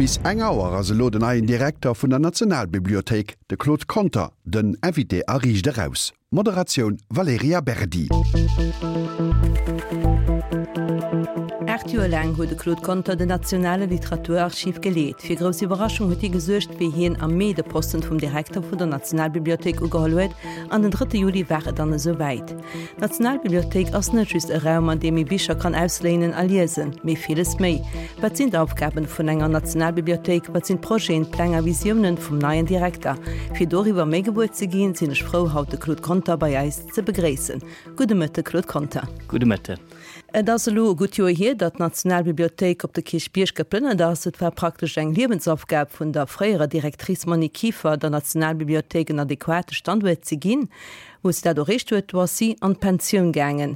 Bis eng Auer ass elo den neien Direkter vun der Nationalbibliothéik, de Claude Conter, den Invité a Riicht Eraus. Moderatioun Valerija Berdi. 8 Joer laang huet de Claude Conter den Nationale Literaturarchiv geleet. Fir grouss Iwwerraschung huet hie gesuergt, wéi hien am Mee de Posten vum Direkter vun der Nationalbibliothéik ugeholl huet. An den drëtte Juli war et dann esou wäit. D'Nationalbibliothéik ass net just e Raum, an deem ee Bicher kann ausléinen a liesen, mee villes méi. Wat sinn d'Aufgaben vun enger Nationalbibliothéik? Wat sinn d'Projeten, d'Pläng a Visiounen vum neien Direkter? Fir doriwwer méi gewuer ze ginn, sinn ech frou, haut de Claude Conter bei eis ze begréissen. Gudde Mëtte, Claude Conter. Gudde Mëtten. Et ass elo e gutt Joer hier, datt d'Nationalbibliothéik op de Kierchbierg geplënnert ass. Et war praktesch eng Liewensaufgab vun der fréierer Directrice Monique Kieffer, der Nationalbibliothéik en adequate Standuert ze ginn. Wou se dat erreecht huet, do ass si an d'Pensioun gaangen.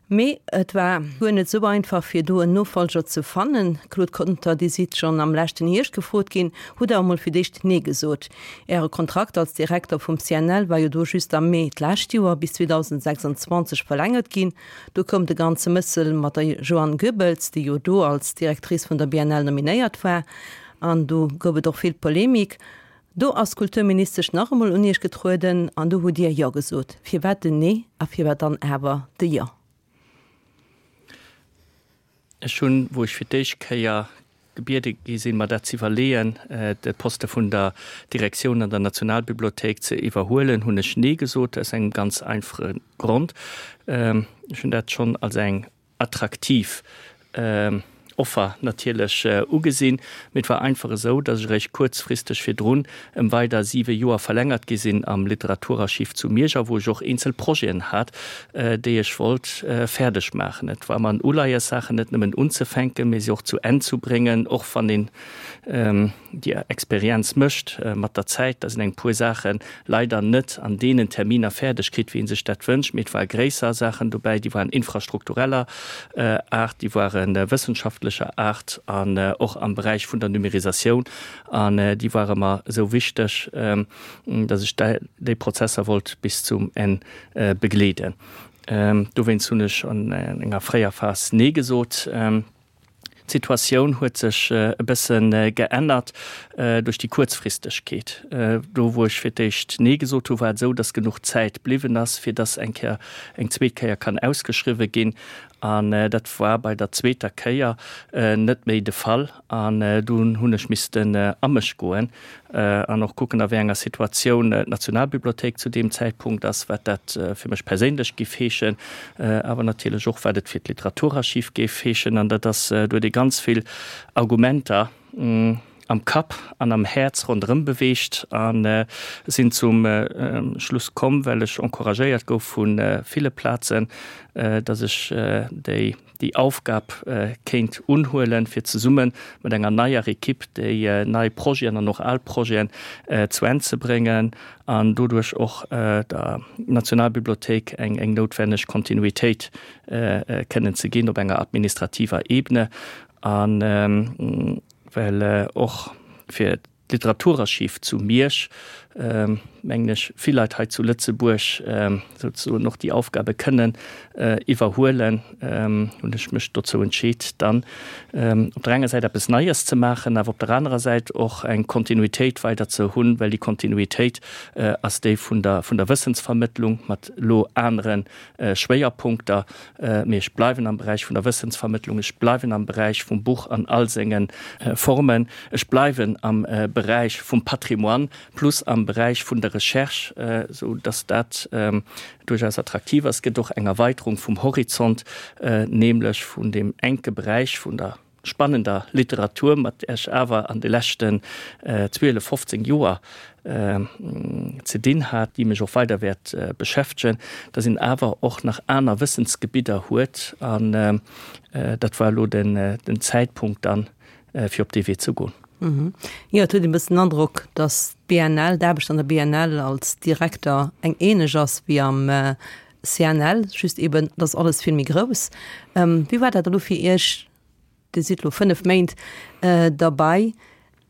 Mee et war guer net esou einfach, fir do en Nofollger ze fannen. Claude Conter, Dir sidd schonn am leschten Hierscht gefrot ginn, hutt awer mol fir d'éischt Nee gesot. Äre Kontrakt als Direkter vum CNL war jo do just am Mee d'lescht Joer bis 2026 verlängert ginn. Do koum de ganze Mëssel mat der Joanne Goebbels, déi jo do als Directrice vun der BNL nominéiert war. An do gouf et och vill Polemik. Do ass d'Kulturministesch nach emol un Iech getrueden an do hutt Dir Jo gesot. Firwat den Nee a firwat dann awer de Jo? Ech hunn, wou ech fir d'éischt Kéier gebiede gi sinn, mer dat z'iwwerleeën, de Poste vun der Direktioun an der Nationalbibliothéik ze iwwerhuelen, hunn ech Nee gesot, aus engem ganz einfache Grond, Ech hunn dat schonn als eng attraktiv Offer natierlech ugesinn, mee et war einfach esou, datt ech eréischt kuerzfristeg virdrun ëm weider siwe Joer verlängert gi sinn am Literaturarchiv zu Miersch a wou ech och eenzel Projeten hat, déi ech wollt fäerdeg maachen. Et war mer en Uleies, Saachen net nëmmen unzefänken, mee se och zu Enn zu bréngen, och wann een déi Experienz mécht mat der Zäit, dass een eng puer Saache leider net an deenen Terminer fäerdeg kritt, wéi ee sech dat wënscht. Mee et ware gréisser Saachen dobäi, déi waren infrastruktureller Aart, déi ware wëssenschaftlecher Aart an och am Beräich vun der Numérisatioun. An déi ware mer esou wichteg, dass ech déi Prozesser wollt bis zum Enn begleeden. Dowéinst hunn ech an enger fréier Phas Nee gesot. D'Situatioun huet sech e bësse geännert duerch déi Kuerzfristegkeet. Do wou ech fir d'éischt Nee gesot hu war et esou, datt genuch Zäit bliwwen ass, fir datt eng Kéier, eng zweet Kéier kann ausgeschriwwe ginn. An dat war bei der zweeter Kéier net méi de Fall. An dunn hunn ech missten a mech goen an och kucken, a wéi enger Situatioun d'Nationalbibliothéik zu deem Zäitpunkt ass, wat dat fir mech perséinlech géif heeschen, awer natierlech och, wat et fir d'Literaturarchiv géif heeschen. An dat ass, do huet ee ganz vill Argumenter am Kapp an am Häerz ronderëm beweegt a sinn zum Schluss komm, well ech encouragéiert gouf vu ville Plazen, datt ech déi déi Aufgab kéint unhuelen, fir zesumme mat enger neier Ekipp déi nei Projeten an och al Projeten zu Enn ze bréngen an doduerch och der Nationalbibliothéik eng noutwenneg Kontinuitéit kënnen ze ginn op enger administrativer Ebene a well och fir D'Literaturarchiv zu Miersch, mengen ech, vill Leit hei zu Lëtzebuerg souzesoen och déi Aufgabe kënnen iwwerhuelen, hunn ech mech dozou entscheet, dann op der enger Säit eppes Neies ze maachen, awer op der anerer Säit och eng Kontinuitéit weider ze hunn, well déi Kontinuitéit ass déi vun der vun der Wëssensvermëttlung mat elo anere Schwéierpunkter. Mee ech bleiwen am Beräich vun der Wëssensvermëttlung, ech bleiwen am Beräich vum Buch an all senge Formen, ech bleiwen am Beräich vum Patrimoine plus am Beräich vun der Recherche, esou dass dat duerchaus attraktiv ass. Et gëtt och eng Erweiterung vum Horizont, nämlech vun deem enke Beräich vun der spannender Literatur, mat där ech awer an de leschten 12, 15 Joer ze dinn hat, déi mech och weider wäert beschäftegen, dass een awer och nach aner Wëssensgebidder huet. An dat war elo den Zäitpunkt dann, fir op dee Wee ze goen. Jo, et huet een e bëssen den Androck, dass d'BNL, d'Aarbecht an der BNL als Direkter eng ähnlech ass wéi am CNL, just eben, et ass alles vill méi grouss. Wéi war dat elo fir Iech? Dir sidd elo 5 Méint derbei.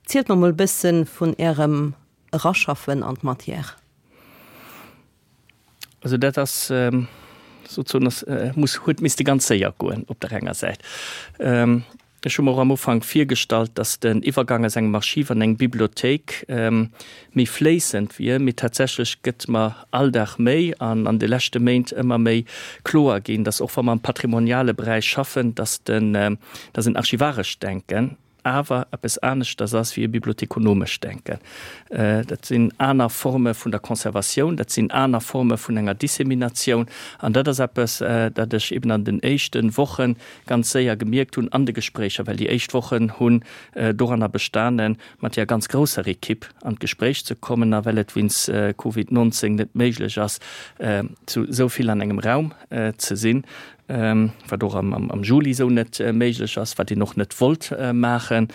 Zielt mer mol e bësse vun Ärem Eraschaffen an d'Matière. Also dat ass souzesoen, ass, muss, huet misste ganz séier goen op der enger Säit. Ech hu mer och am Ufank virgestallt, dass den Iwwergang aus engem Archiv an eng Bibliothéik méi fléissend wier, mee tatsächlech gëtt mer all Dag méi an an de leschte Méint ëmmer méi kloer ginn, dass och wa mer am patrimoniale Beräich schaffen, dass den, dass en archivarescht Denken awer eppes aneschters ass wéi e bibliothekonomescht Denken. Dat sinn aner Forme vun der Conservatioun, dat sinn aner Forme vun enger Disseminatioun an dat ass eppes, dat ech eben an den éischte Woche ganz séier gemierkt hunn an de Gespréicher, well déi éischt Wochen hunn doranner bestanen, mat där ganz grousser Ekipp an d'Gespréich ze kommen a well et wéinst Covid 19 net méiglech ass, zu esou vill an engem Raum ze sinn, wat och am Juli esou net méiglech ass, wat een och net wollt maachen.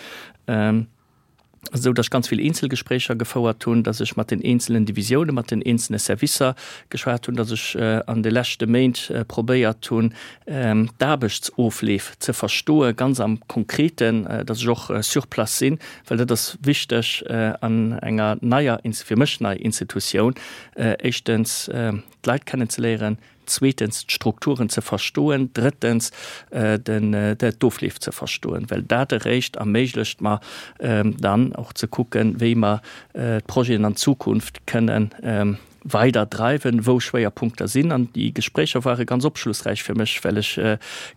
Esou datt ech ganz vill Eenzelgespréicher gefouert hunn, datt ech mat den eenzelen Divisiounen, mat den eenzele Servicer geschwat hunn, datt ech an de leschte Méint probéiert hunn, d'Aarbechtsofleef ze verstoen, ganz am Konkreten, datt ech och sur place sinn, well dat ass wichteg an enger neier, fir mech nei Institutioun, éischtens d'Leit kennenzeléieren, zweetens d'Strukturen ze verstoen, drëttens d'Ofleef ze verstoen, well dat eréischt erméiglecht mer dann och ze kucken, wéi mer d'Projeten an Zukunft kënnen weider dreiwen, wou Schwéierpunkter sinn. An déi Gespréicher ware ganz opschlussräich fir mech, well ech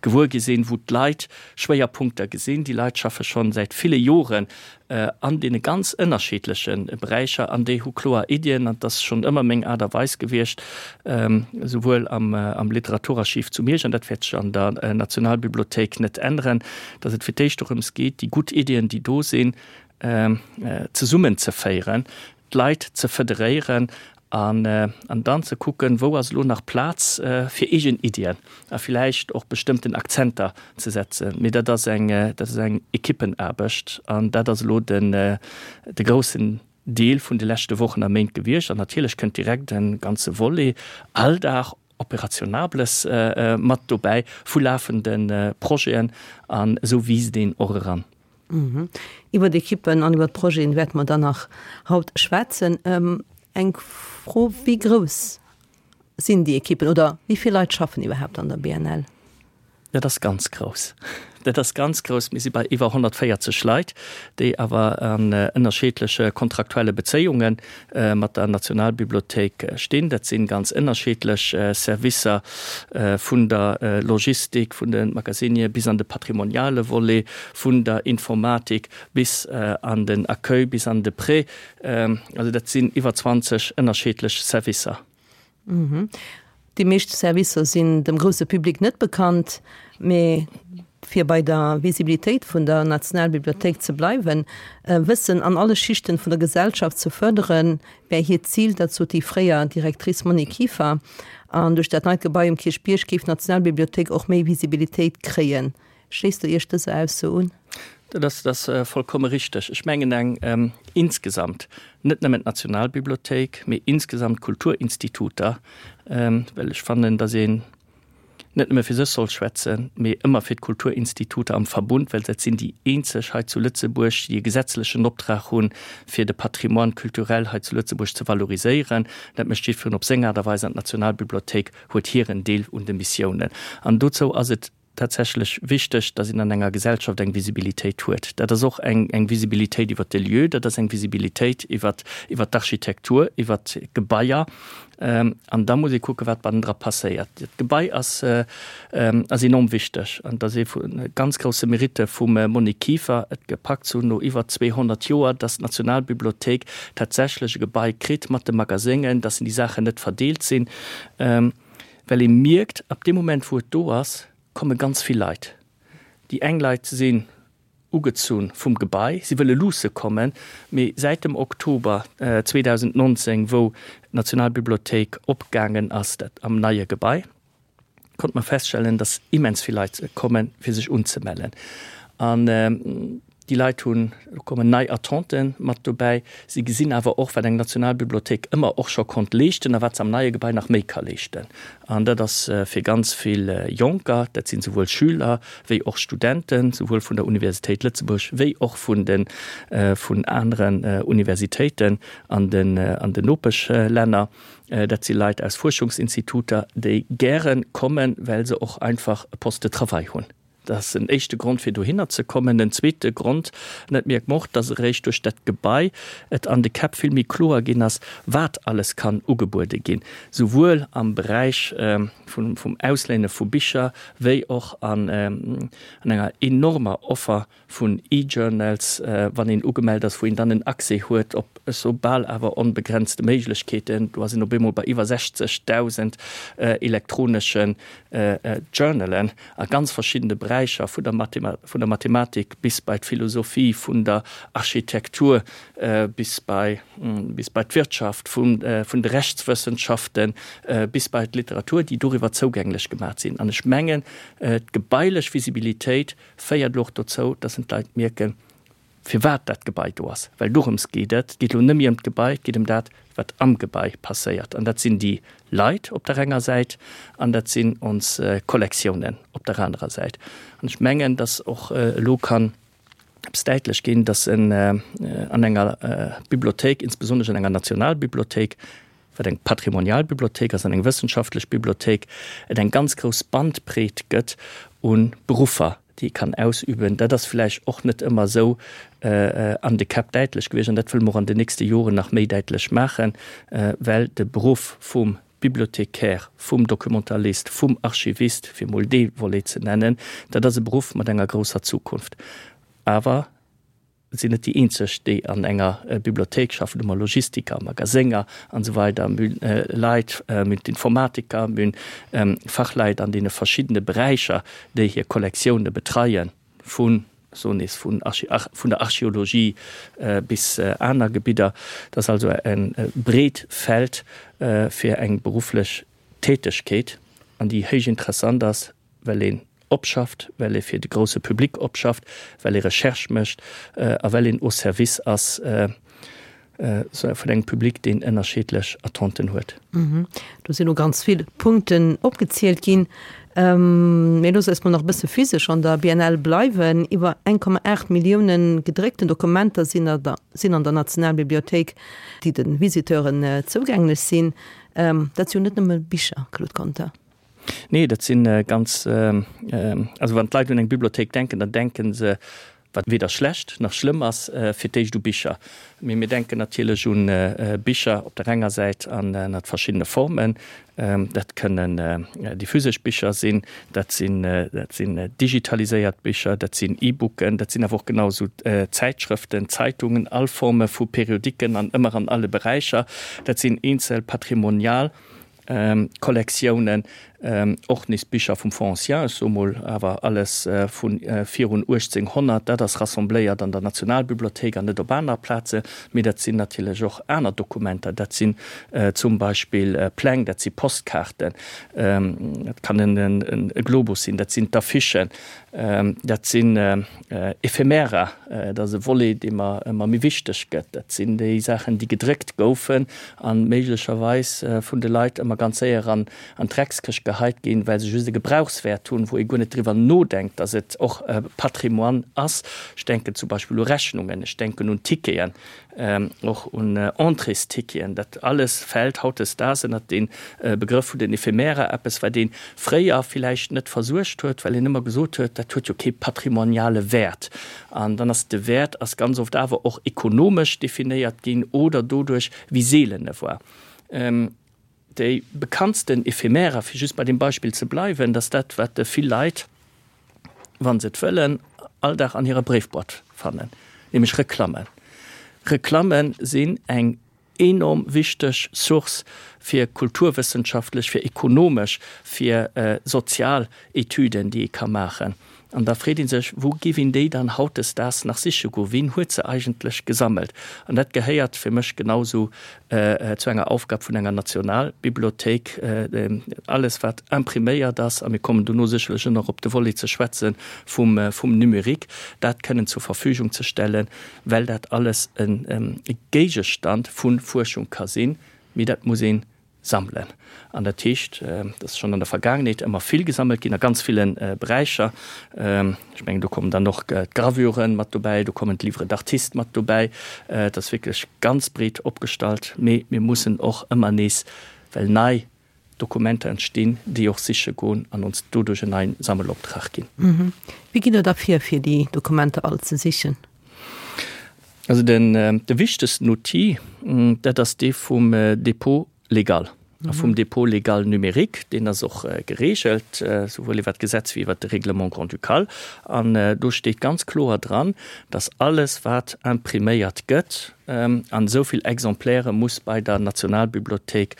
gewuer gi sinn, wou d'Leit Schwéierpunkter gesinn. Déi Leit schaffe schonn säit ville Joren an deene ganz ënnerschiddleche Beräicher an déi hu kloer Iddien an et ass schonn ëmmer meng Aart a Weis gewiescht, esouwuel am Literaturarchiv zu Miersch, an dat wäert sech an der Nationalbibliothéik net änneren, datt et fir d'éischt dorëms geet, déi gutt Iddien, déi do sinn, zesummenzeféieren, d'Leit ze federéieren an an dann ze kucken, wou ass elo nach Plaz fir eegen Iddien a villäicht och bestëmmten Akzenter ze setzen. Mee dat ass eng, dat ass eng Ekippenaarbecht an dat ass elo den de groussen Deel vun de leschte Wochen a Méint gewiescht. An natierlech kënnt direkt e ganze Volet Alldag, Operationables mat dobäi vu lafende Projeten an esou wiisst een och eran. Iwwer d'Ekippen an iwwer d'Projeten wäerte mer dann nach haut schwätzen. Eng Fro, Wéi grouss sinn déi Ekippen oder wéi vill Leit schaffen iwwerhaapt an der BNL? Dat ass ganz grouss. Dat ass ganz grouss. Mir si bei iwwer 140 Leit, déi awer an ënnerscheedleche kontraktuelle Bezéiunge mat der Nationalbibliothéik stinn. Dat si ganz ënnerscheedlech Servicer, vun der Logistik, vun de Magasinier bis an de patrimoniale Volet, vun der Informatik bis an den Accueil, bis an de Prêt. Also dat sinn iwwer 20 ënnerscheedlech Servicer. Déi meescht Servicer sinn dem grousse Public net bekannt, mee fir bei der Visibilitéit vun der Nationalbibliothéik ze bleiwen, Wëssen an alle Schichten vun der Gesellschaft ze fërderen, wär hiert Zil. Dat sot déi fréier Directrice Monique Kieffer. An duerch dat neit Gebai um Kierchbierg géif d'Nationalbibliothéik och méi Visibilitéit kréien. Schléisst Der Iech dëser Ausso un? Dat ass, dat ass vollkomme richteg. Ech mengen eng insgesamt, net nëmmen d'Nationalbibliothéik, mee insgesamt d'Kulturinstituter, well ech fannen, datt een net nëmme fir sech soll schwätzen, mee ëmmer fir d'Kulturinstituter am Verbund, well dat sinn déi eenzeg hei zu Lëtzebuerg, déi e gesetzlechen Optrag hunn, fir de Patrimoine culturel hei zu Lëtzebuerg ze valoriséieren. Dat mécht jiddwereen op seng Aart a Weis an d'Nationalbibliothéik huet hiren Deel un de Missiounen. An dozou ass et tatsächlech wichteg, dass een an enger Gesellschaft eng Visibilitéit huet. Dat ass och eng, eng Visibilitéit iwwert de Lieu, dat ass eng Visibilitéit iwwert, iwwert d'Architektur, iwwert d'Gebaier. An da muss ee kucken, wat bannendra passéiert. Dat Gebai ass, ass enorm wichteg an dat ass ee vu ganz grousse Meritte vum Monique Kieffer, et gepackt ze hunn no iwwer 200 Joer, dass d'Nationalbibliothéik tatsächlech e Gebai kritt mat de Magaséngen, dass déi Saachen net verdeelt sinn. Well ee mierkt, ab deem Moment, wou et do ass, komme ganz vill Leit. Déi eng Leit sinn ugezunn vum Gebai, si wëlle luusse kommen, mee säit dem Oktober 2019, wou d'Nationalbibliothéik opgaangen ass, dat am neie Gebai, konnte mer feststellen, dass immens vill Leit kommen, fir sech unzemellen. An Déi Leit hunn, do kommen nei Attenten mat dobäi. Si gesinn awer och, wat eng Nationalbibliothéik ëmmer och scho konnt leeschten a wat se am neie Gebai nach méi ka leeschten. An dat ass fir ganz vill Jonker, dat sinn souwuel Schüler wéi och Studenten, souwuel vun der Universitéit Lëtzebuerg wéi och vun de vun aneren Universitéiten an den an den Nopeschlänner. Dat si Leit aus Fuerschungsinstituter, déi gäre kommen, well se och einfach e Poste de travail hunn. Dat ass en éischte Grond, fir dohinner ze kommen. En zweete Grond, an dat mierkt mer och, dass eréischt duerch dat Gebai et an de Käpp vill méi kloer ginn ass, wat alles kann ugebuede ginn, souwuel am Beräich vum Ausléine vu Bicher wéi och an enger enormer Offer vun E-Journals, wann een ugemellt ass, wou een dann en Accès huet op sou bal awer onbegrenzte Méiglechkeeten. Do ass een op eemol bei iwwer 60.000 elektronesche Journalen a ganz verschiddene Beräicher, vun der vun der Mathematik bis bei d'Philosophie, vun der Architektur bis bei bis bei d'Wirtschaft, vun vun de Rechtswëssenschaften bis bei d'Literatur, déi doriwwer zougänglech gemaach sinn. An ech mengen, d'gebailech Visibilitéit féiert elo och dozou, dass en d'Leit mierken, firwat dat Gebai do ass. Well dorëms geet et. Et geet elo net méi ëm d'Gebai, et geet ëm dat, wat am Gebai passéiert. An dat sinn déi Leit op der enger Säit an dat sinn ons Kollektiounen op der anerer Säit. An ech mengen, dass och elo kann eppes däitlech ginn, dass en an enger Bibliothéik, insbesonnesch an enger Nationalbibliothéik, wat eng patrimonial Bibliothéik ass an eng wëssenschaftlech Bibliothéik, et eng ganz grouss Bandbreet gëtt u Beruffer, déi ee kann ausüben. Dat ass vläicht och net ëmmer esou an de Käpp däitlech gewiescht an dat wëlle mer och an den nächste Joren nach méi däitlech maachen, well de Beruff vum Bibliothécaire, vum Documentalist, vum Archivist, fir emol dee Volet ze nennen, dat ass e Beruff mat enger grousser Zukunft. Awer Et sinn net déi eenzeg, déi an enger Bibliothéik schaffen. Do hu mer Logistiker, Magasénger an esou weider. Mir hunn Leit, mir hunn d'Informatiker, mir hunn Fachleit an deene verschiddene Beräicher, déi hir Kollektioune betreien, vun, ech soen nees, vun vun der Archeologie bis aner Gebidder. Dat ass also e breet Feld fir eng berufflech Tätegkeet, an déi héich interessant ass, well een opschafft, well ee fir de grousse Public opschafft, well ee Recherche mécht a well een au service ass vun engem Public, deen ënnerscheedlech Attenten huet. Do sinn elo ganz vill Punkten opgezielt ginn. Mir loosse eis mol nach e bësse physesch an der BNL bleiwen. Iwwer 1,8 Millioune gedréckten Dokumenter sinn an der Nationalbibliothéik, déi de Visiteuren zougänglech sinn. Dat si jo net nëmme Bicher, Claude Conter. Nee, dat si ganz, also wann d'Leit un eng Bibliothéik denken, dann denke se, wat weder schlecht nach schlëmm ass, fir d'éischt u Bicher. Mee mir denken natierlech u Bicher op der enger Säit an ënnert verschiddene Formen. Dat kënnen déi physesch Bicher sinn, dat sinn, dat sinn digitaliséiert Bicher, dat sinn E-Booken, dat sinn awer och genau esou Zäitschrëften, Zeitungen, all Forme vu Periodiken an ëmmer an alle Beräicher. Dat sinn eenzel patrimonial Kollektiounen, och nees Bicher vum Fonds ancien, ech soe mol awer alles vu virun 1800, dat ass rassembléiert an der Nationalbibliothéik an net op aner Plaze. Mee dat sinn natierlech och aner Dokumenter, dat sinn zum Beispill Pläng, dat si Postkaarten, dat kann e Globus sinn, dat sinn d'Affichen, dat sinn Ephemera, dat ass e Volet, dee mer ëmmer méi wichteg gëtt. Dat sinn déi Saachen, déi gedréckt goufen a méiglecherweis vun de Leit ëmmer ganz séier an d'Dreckskëscht geheit ginn, well se just e Gebrauchswäert hunn, wou ee guer net driwwer nodenkt, datt et och Patrimoine ass. Ech denken zum Beispill u Rechnungen, ech denken un Ticketen, och un Entréesticketen, dat alles fält hautdesdaags ënnert dee Begrëff vun den Ephemera, eppes wat ee fréier villäicht net versuergt huet, well een ëmmer gesot huet, dat huet jo kee patrimoniale Wäert. An dann ass de Wäert ass ganz oft awer och ekonomesch definéiert ginn oder doduerch, wéi seelen e war. Déi bekanntsten Ephemera, fir just bei deem Beispill ze bleiwen, dat ass dat, wat vill Leit, wa se et wëllen, all Dag an hirer Bréifboîte fannen, nämlech Reklammen. Reklamme sinn eng enorm wichteg Source fir kulturwëssenschaftlech, fir ekonomesch, fir sozial Etüden, déi ee ka maachen. An da freet ee sech, Wou giff een déi dann hautdesdaags nach siche goen? Wien huet se eigentlech gesammelt? An dat gehéiert fir mech genausou zu enger Aufgab vun enger Nationalbibliothéik, alles wat impriméiert ass, a mir kommen dono sécherlech och nach op de Volet ze schwätze vum Numérique, dat kënnen zur Verfügung ze stellen, well dat alles e Géigestand vu Fuerschung ka sinn. Mee dat muss een Sammelen. An dat heescht, et ass schonn an der Vergaangenheet ëmmer vill gesammelt ginn a ganz ville Beräicher. Ech mengen, do kommen dann och d'Gravuren mat dobäi, do kommen d'Livres d'artistes mat dobäi. Et ass wierklech ganz breet opgestallt. Mee mir mussen och ëmmer nees, well nei. Dokumenter entstinn, déi och siche goen an ons doduerch en neien Sammeloptrag ginn. Wéi gitt Der da vir, fir déi Dokumenter all ze sichen? Also den de wichtegsten Outil, dat ass dee vum Dépôt légal a vum Dépôt légal numérique. Deen ass och geregelt, souwuel iwwert d'Gesetz wéi iwwert de Règlement grand-ducal. An do steet ganz kloer dran, dass alles, wat impriméiert gëtt, An esou vill Exemplaire muss bei der Nationalbibliothéik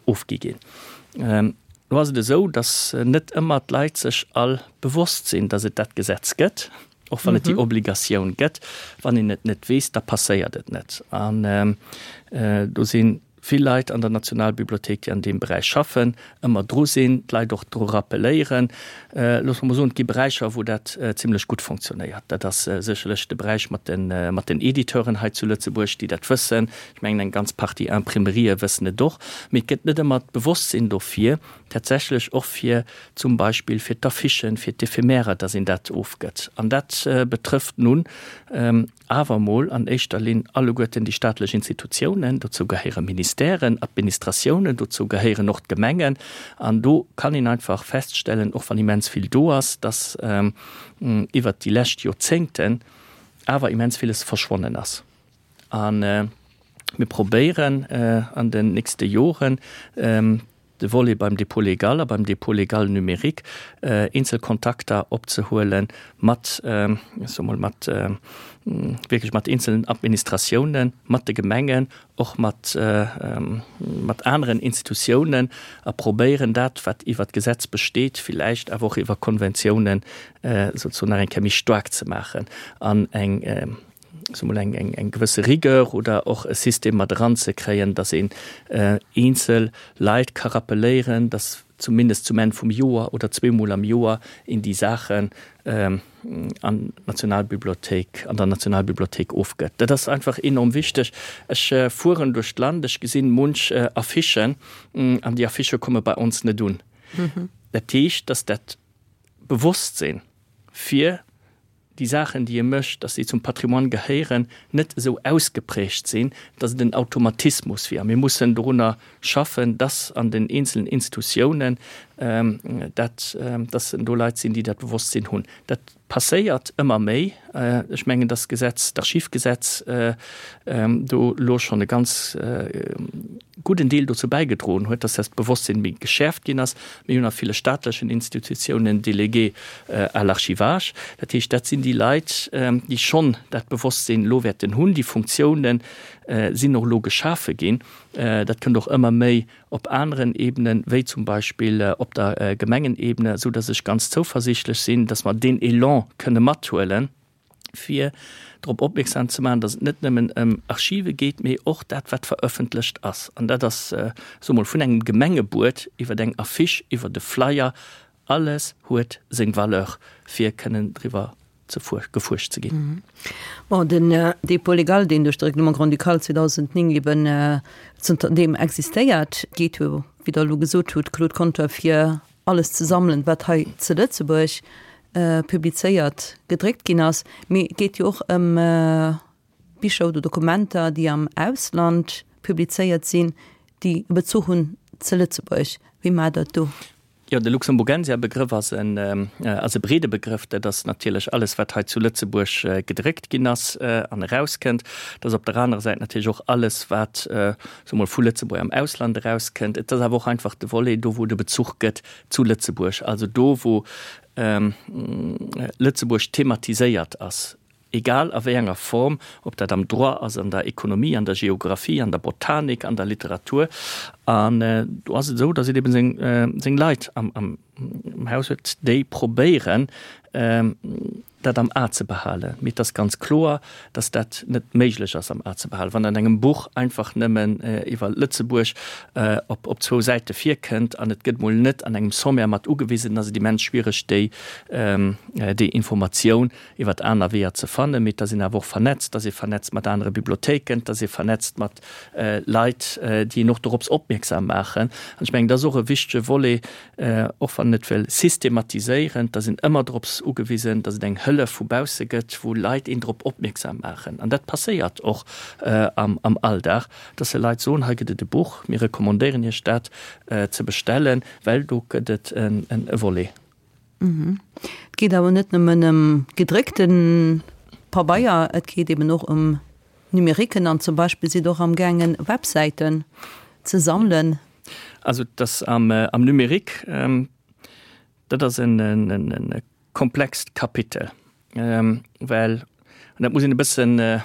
ofgi ginn. Lo ass et esou, datt net ëmmer d'Leit sech all bewosst sinn, datt et dat Gesetz gëtt, och wann et déi Obligatioun gëtt. Wann een et net weess, da passéiert et net. An do si vill Leit an der Nationalbibliothéik, déi an deem Beräich schaffen, ëmmer dru sinn, d'Leit och dru rappelléieren. Loosse mer mol soen, et gi Beräicher, wou dat zimlech gutt fonctionnéiert. Dat ass sécherlech de Beräich mat de, mat den Editeuren hei zu Lëtzebuerg, déi dat wëssen. Ech mengen, eng ganz Partie Imprimerië wëssen et och. Mee et gëtt net ëmmer d'Bewosstsinn dofir, tatsächlech och fir zum Beispill fir d'Affichen, fir d'Ephémèrer, dass een dat ofgëtt. An dat betrëfft nun awer emol an éischter Linn alleguerten déi staatlech Institutiounen, dozou gehéiere Ministèren, Administratiounen, dozou gehéieren och d'Gemengen. An do kann een einfach feststellen, och wann immens vill do ass, dass iwwert déi lescht Joerzéngten awer immens villes verschwonnen ass. A mir probéieren an den nächste Joren, de Volet beim Dépôt légal a beim Dépôt légal numérique eenzel Kontakter opzehuele mat, ech soe mol, mat wierklech mat eenzelen Administratiounen, mat de Gemengen, och mat, mat aneren Institutiounen a probéieren dat, wat iwwert d'Gesetz besteet, villäicht awer och iwwer Konventiounen souzesoen nach eng Kéier méi staark ze maachen an eng, soe mol, eng, eng, eng gewësse Rigueur oder och e System mat eranzekréien, dass een eenzel Leit ka rappeléieren, dass zumindest zum Enn vum Joer oder zweemol am Joer een déi Saachen an d'Nationalbibliothéik, an der Nationalbibliothéik ofgëtt. Dat ass einfach enorm wichteg. Ech fueren duerch d'Land, ech gesinn munch Affichen an déi Affichë komme bei ons net un. Dat heescht, dass dat Bewosstsinn fir déi Saachen, déi e mécht, dass déi zum Patrimoine gehéieren, net esou ausgeprägt sinn, dass et en Automatismus wier. A mir mussen dorunner schaffen, dass an den eenzelen Institutiounen dat, dass do Leit sinn, déi dat Bewosstsinn hunn. Dat passéiert ëmmer méi. Ech mengen, dass d'Gesetz, d'Archivgesetz do elo schonn e ganz gudden Deel dozou bäigedroen huet, dass dat Bewosstsinn méi geschäerft ginn ass. Mir hunn a ville staatlechen Institutiounen Délégués à l'archivage. Dat heescht, dat sinn déi Leit, déi schonn dat Bewosstsinn elo wäerten hunn. Déi Funktiounen sinn och elo geschafe ginn. Dat kënnt och ëmmer méi op aneren Ebenen, wéi zum Beispill op der Gemengenebene, esou dass ech ganz zouversiichtlech sinn, dass mer deen Elan kënne mathuelen. fir drop opmierksam ze maachen, datt et net nëmmen ëm Archive geet, mee och dat, wat verëffentlecht ass. An dat ass, soe mol, vun engem Gemengebuet iwwer eng Affiche, iwwer e Flyer, alles huet seng Valeur, fir kënnen driwwer ze gefuerscht ze ginn. Bon, den Dépôt légal, deen duerch de Règlement grand-ducal 2009 eben zënter deem existéiert, geet jo, wéi Der elo gesot hutt, Claude Conter, fir alles ze sammelen, wat hei ze Lëtzebuerg publizéiert, gedréckt ginn ass, mee et geet jo och ëm Bicher oder Dokumenter, déi am Ausland publizéiert sinn, déi e Bezuch hunn ze Lëtzebuerg. Wéi maacht Der et do? Jo, de Luxemburgensia-Begrëff ass en ass e breede Begrëff. Dat ass natierlech alles, wat hei zu Lëtzebuerg gedréckt ginn ass an erauskënnt. Dat ass op der anerer Säit natierlech och alles, wat, soe mol, vu Lëtzebuerg am Ausland erauskënnt. Et ass awer och einfach de Volet do, wou et e Bezuch gëtt zu Lëtzebuerg, also do wou Lëtzebuerg thematiséiert ass, egal a wéi enger Form, ob dat am Droit ass, an der Ekonomie, an der Geographie, an der Botanik, an der Literatur. An do ass et esou, datt een eben seng Leit am Haus huet, déi probéieren, dat am A ze behalen. Mee et ass ganz kloer, dass dat net méiglech ass am A ze behalen. Wann an engem Buch einfach nëmmen iwwer Lëtzebuerg op op zwou Säite virkënnt an et gëtt mol net an engem Sommaire mat ugewisen, dann ass et immens schwiereg déi déi Informatioun iwwer aner Weeër ze fannen. Mee et ass een awer och vernetzt, et ass ee vernetzt mat anere Bibliothéiken, et ass ee vernetzt mat Leit, déi een och dorops opmierksam maachen. An ech mengen, dat ass och e wichtege Volet, och wann en net wëll systematiséieren, et ass een ëmmer drops ugewisen, datt et eng. Hëllef vu bausse gëtt, wou Leit een drop opmierksam maachen. An dat passéiert och am Alldag, dass se Leit soen, hei gëtt et e Buch, mir recommandéieren Iech dat ze bestellen, well do gëtt et e Volet. Et geet awer net nëmmen ëm gedréckte Pabeier, et geet eben och ëm Numériquen an zum Beispill sidd och amgaangen Websäiten ze sammelen. Also dass am Numérique, dat ass e komplext Kapitel, well, an dat muss een e bëssen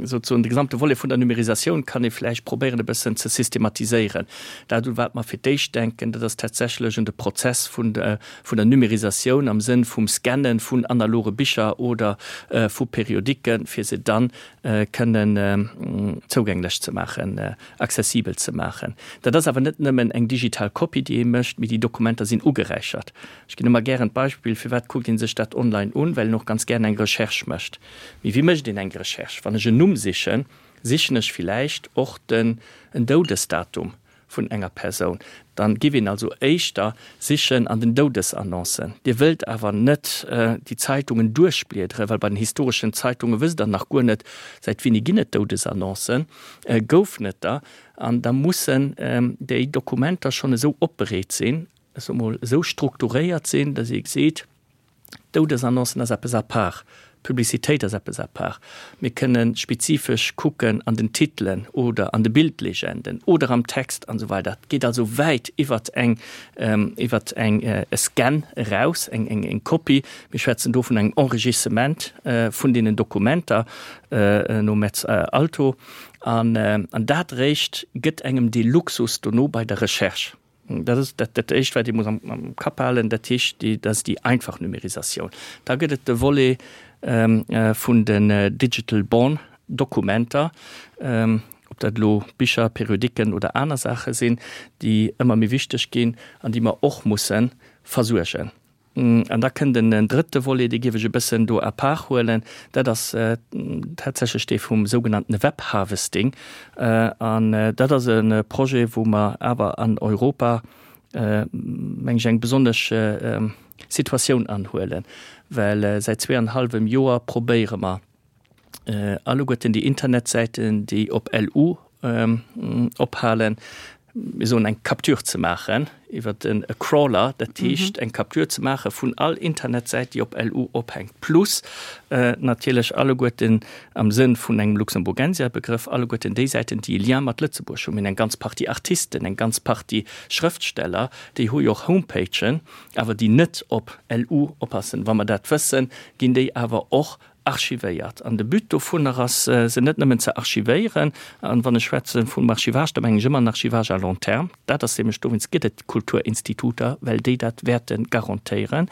souzesoen, de gesamte Volet vun der Numérisatioun kann ee vläicht probéieren e bëssen ze systematiséieren. Dat, u wat mer fir d'éischt denken, dat ass tatsächlech un de Prozess vun der Numérisatioun am Sënn vum Scanne vun analoge Bicher oder vu Periodiken, fir se dann kënnen zougänglech ze maachen, accessibel ze maachen. Dat ass awer net nëmmen eng digital Kopie, déi ee mécht, mee déi Dokumenter sinn ugeräichert. Ech ginn ëmmer gären d'Beispill, Firwat kuckt ee sech dat online un? Well een och ganz gären eng Recherche mécht. Mee wéi mécht een eng Recherche? Wann ech en Numm sichen, sichen ech villäicht och den en Doudesdatum vun enger Persoun. Dann giff een also éischter sichen an den Doudesannoncen. Dir wëllt awer net déi Zeitungen duerchbliederen, well bei den historeschen Zeitunge wësst der nach guer net, säit wéini ginn et Doudesannoncen, goufen et der? An da mussen déi Dokumenter schonn esou opbereet sinn, ech soe mol, esou strukturéiert sinn, datt ee geseet, Doudesannoncen ass eppes à part, Publicitéit ass eppes à part. Mir kënne spezifesch kucken an den Titelen oder an de Bildlegenden oder am Text an esou weider. Et geet also wäit iwwert eng, iwwert eng, e Scan eraus, eng, eng, eng Kopie. Mir schwätzen do vun engem Enrichissement vun deenen Dokumenter no Metz Alto. An, an dat eréischt gëtt engem dee Luxus dono bei der Recherche. Dat ass dat, dat Éischt, wat ee muss am, am Kapp halen. Dat heescht, déi, dat ass déi einfach Numérisatioun. Da gëtt et de Volet vun den Digital Born Dokumenter, ob dat elo Bicher, Periodiken oder aner Saache sinn, déi ëmmer méi wichteg ginn an déi mer och musse versuergen. An da kënnt en drëtte Volet, dee géif ech e bëssen do à part huelen, dat ass tatsächlech dee vum sougenannten Webharvesting. An dat ass e Projet, wou mer awer an Europa, meng ech, eng besonnesch Situatioun anhuelen, well säit zweeanhallwem Joer probéiere mer, Alleguerten déi Internetsäiten, déi op LU ophalen, mir soen eng Capture ze maachen iwwer e Crawler, dat heescht eng Capture ze maache vun all Internetsäit, déi op LU ophänkt, plus natierlech alleguerten am Sënn vun engem Luxemburgensia-Begrëff alleguerten déi Säiten, déi e Lien mat Lëtzebuerg hunn. Mir hunn eng ganz Partie Artisten, eng ganz Partie Schrëftsteller, déi hu jo och Homepagen, awer déi net op LU oppassen. Wa mer dat wëssen, ginn déi awer och archivéiert. An de But dovunner ass, se net nëmmen ze archivéieren, an wann ech schwätze vum Archivage, da mengen ech ëmmer en Archivage à long terme, dat ass nämlech, dowéinst gëtt et d'Kulturinstituter, well déi dat wäerte garantéieren,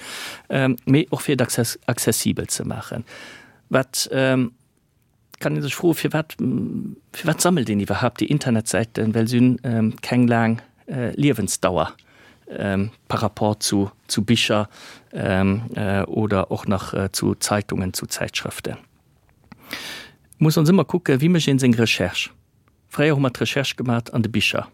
mee och fir et accessibel ze maachen. Wat kann ee sech froen, firwat, firwat sammelt een iwwerhaupt déi Internetsäiten, well se hunn keng laang Liewensdauer par rapport zu, zu Bicher oder och nach zu Zeitungen, zu Zäitschrëften. Muss ons ëmmer kucken, wéi mécht een seng Recherche. Fréier hu mer d'Recherche gemat an de Bicher.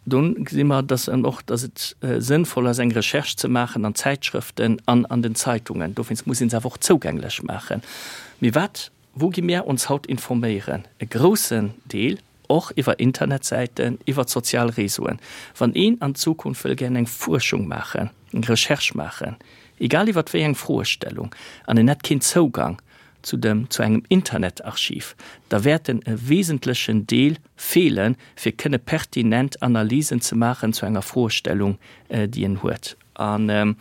Dunn gesi mer, dass en och, dass et sënnvoll ass eng Recherche ze maachen an Zäitschrëften an an den Zeitungen. Dowéinst muss een se awer och zougänglech maachen. Mee wat, wou gi mär ons haut informéieren? E groussen Deel och iwwer Internetsäiten, iwwer d'sozial Réseauen. Wann een an Zukunft wëll gären eng Fuerschung maachen, eng Recherche maachen, egal iwwer wéi eng Froestellung, an en hätt keen Zougang zu dem, zu engem Internetarchiv, da wäert en e wesentlechen Deel feelen, fir kënne pertinent Analysen ze maachen zu enger Froestellung, déi en huet. An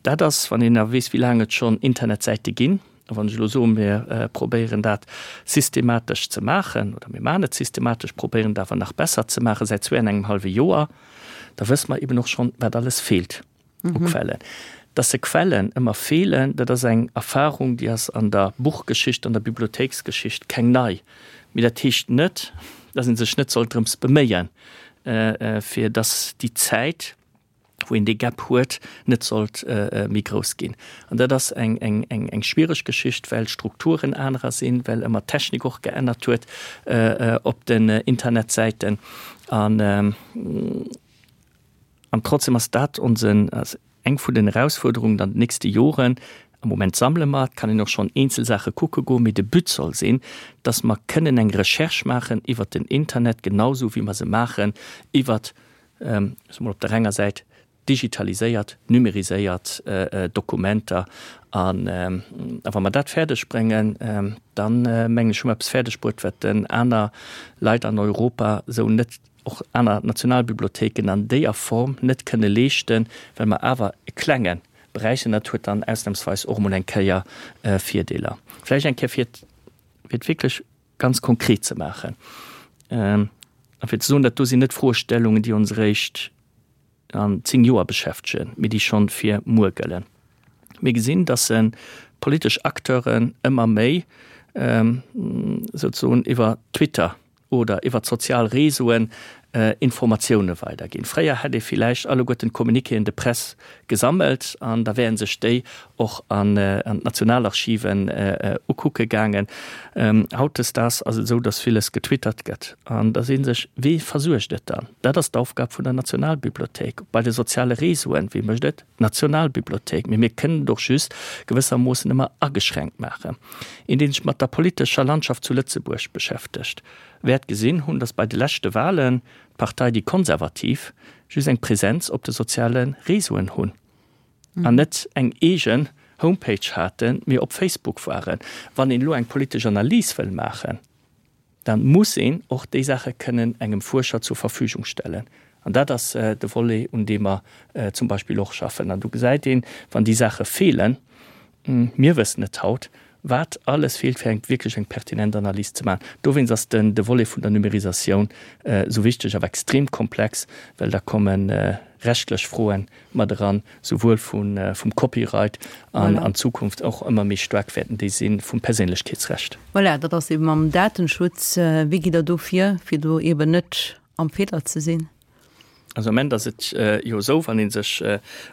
dat ass, wann een da weess, wéi laang et schonn Internetsäite ginn, A wann ech elo soen, mir probéieren dat systematesch ze maachen, oder mir maachen et systematesch, probéieren et awer nach besser ze maachen säit zwee an engem hallwe Joer, da wësse mer eben och schonn, wat alles feelt u Quellen. Dass se Quellen ëmmer feelen, dat ass eng Erfahrung, déi ass an der Buchgeschicht, an der Bibliothéiksgeschicht keng nei. Mee dat heescht net, dass ee sech net soll drëms beméien, fir dass déi Zäit, wou een dee Gap huet, net sollt méi grouss ginn. An dat ass eng, eng, eng, eng schwiereg Geschicht, well d'Strukturen anerer sinn, well ëmmer d'Technik och geännert huet op den Internetsäiten. An, an trotzdem ass dat onsen, ass eng vun den Erausfuerderungen an den nächste Joren. Am Moment sammele mer, et kann een och schonn eenzel Saache kucke goen, mee de But soll sinn, dass mer kënnen eng Recherche maachen iwwert den Internet, genau esou wéi mer se maachen iwwert, ech soe mol op der enger Säit, digitaliséiert, numeriséiert Dokumenter. An a wa mer dat fäerdeg bréngen, dann, mengen ech, hu mer eppes fäerdeg bruet, wat aner Leit an Europa esou net, och aner Nationalbibliothéiken an déier Form net kënne leeschten, well mer awer e klenge Beräich sinn. Dat huet dann ausnahmsweis och emol eng Kéier Virdeeler. Vläicht eng Kéier, fir et, fir et wierklech ganz konkret ze maachen a fir ze soen, dat do sinn net Froestellungen, déi ons eréischt an 10 Joer beschäftegen, mee déi schonn fir muer gëllen. Mir gesinn, dass se politesch Acteuren ëmmer méi souzesoen iwwer Twitter oder iwwer d'sozial Réseauen Informatioune weiderginn. Fréier hätt ee villäicht alleguerten d'Communiquéen de presse gesammelt an da wären sech déi och an d'Nationalarchiven ukucke gaangen. Hautdesdaags ass et esou, datt villes getwittert gëtt an da seet ee sech, Wee versuergt et dann? Dat ass d'Aufgab vun der Nationalbibliothéik. Bei de soziale Réseauen, wee mécht et? D'Nationalbibliothéik. Mee mir kënnen et och just gewëssermoossen ëmmer ageschränkt maachen. Een, dee sech mat der politescher Landschaft zu Lëtzebuerg beschäftegt, wäert gesinn hunn, datt bei de leschte Wahlen d'Partei Déi Konservativ just eng Präsenz op de soziale Réseauen hunn an net eng eegen Homepage haten, mee op Facebook waren. Wann een elo eng politesch Analys wëll maachen, da muss een och déi Saache kënnen engem Fuerscher zur Verfügung stellen. An dat ass de Volet, un deem mer zum Beispill och schaffen. An do gesäit een, wann déi Saache feelen, mir wëssen et haut, wat alles feelt, fir eng wierklech eng pertinent Analys ze maachen. Dowéinst ass den de Volet vun der Numérisatioun esou wichteg, awer extrem komplex, well da komme rechtlech Froen mat eran, souwuel vum Copyright an an Zukunft och ëmmer méi staark wäerten déi si vum Perséinlechkeetsrecht. Voilà, dat ass eeben mam Datenschutz. Wéi gitt Der do vir, fir do eeben net am Feeler ze sinn? Also am Ament ass et jo esou, wann ee sech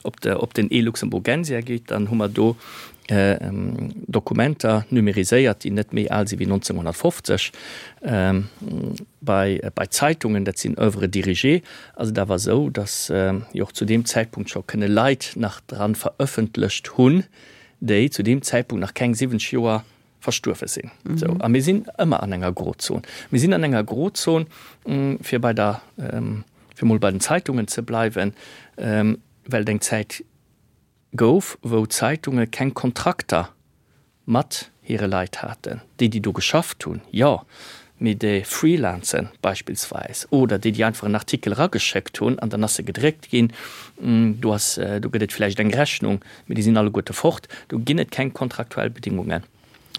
op de op den e-Luxemburgensia geet, dann hu mer do Dokumenter numériséiert, déi net méi al si wéi 1950. Bei bei Zeitungen, dat sinn Oeuvres dirigées, ass et awer esou, datt jo och zu deem Zäitpunkt scho kënne Leit nach dran verëffentlecht hunn, déi zu deem Zäitpunkt nach keng 70 Joer verstuerwe sinn. Esou, a mir sinn ëmmer an enger Grozon. Mir sinn an enger Grozon, fir bei der, fir emol bei den Zeitungen ze bleiwen, well et eng Zäit gouf, wou d'Zeitunge keng Kontrakter mat hire Leit haten. Déi, déi do geschafft hunn, jo, mee déi Freelancen beispillsweis oder déi, déi einfach en Artikel erageschéckt hunn an dann ass e gedréckt ginn, do ass, do gëtt et vläicht eng Rechnung, mee déi sinn alleguerte fort. Do ginn et keng kontraktuell Bedingungen.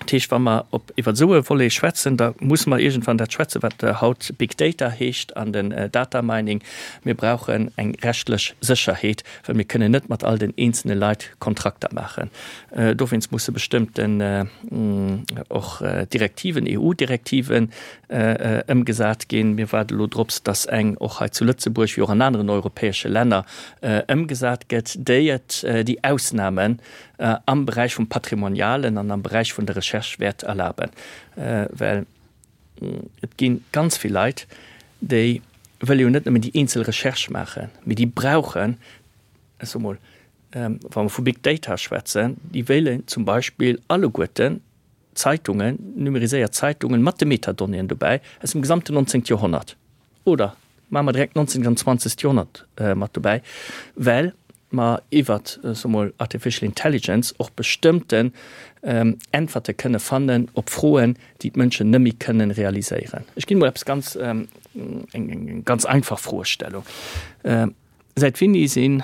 Dat heescht, wa mer op iwwer esou e Volet schwätzen, da musse mer iergendwann dat schwätzen, wat haut Big Data heescht an den Data Mining. Mir brauchen eng rechtlech Sécherheet, well mir kënnen net mat all den eenzelne Leit Kontrakter maachen. Dowéinst musse bestëmmten och Direktiven, EU-Direktiven ëmgesat ginn. Mir waarde elo drops, dass eng och hei zu Lëtzebuerg, wéi och an aneren europäesche Länner, ëmgesat gëtt, déi et déi Ausnamen am Beräich vum Patrimonialen an am Beräich vun der Recherche wäert erlaben. Well et gi ganz vill Leit, déi wëlle jo net nëmmen déi eenzel Recherche maachen, mee déi brauchen, ech soe mol, wa mer vu Big Data schwätzen, déi wéilen zum Beispill alleguerten Zeitungen, numeriséiert Zeitungen mat de Metadonnéeën dobäi aus dem gesamten 19. Joerhonnert oder maache mer direkt 19. an 20. Joerhonnert mat dobäi, well mer iwwert, soe mol, Artificial Intelligence och bestëmmten Äntwerte kënne fannen op Froen, déi d'Mënschen net méi kënnen realiséieren. Ech ginn emol eppes ganz, eng ganz einfach Froestellung. Säit wéini sinn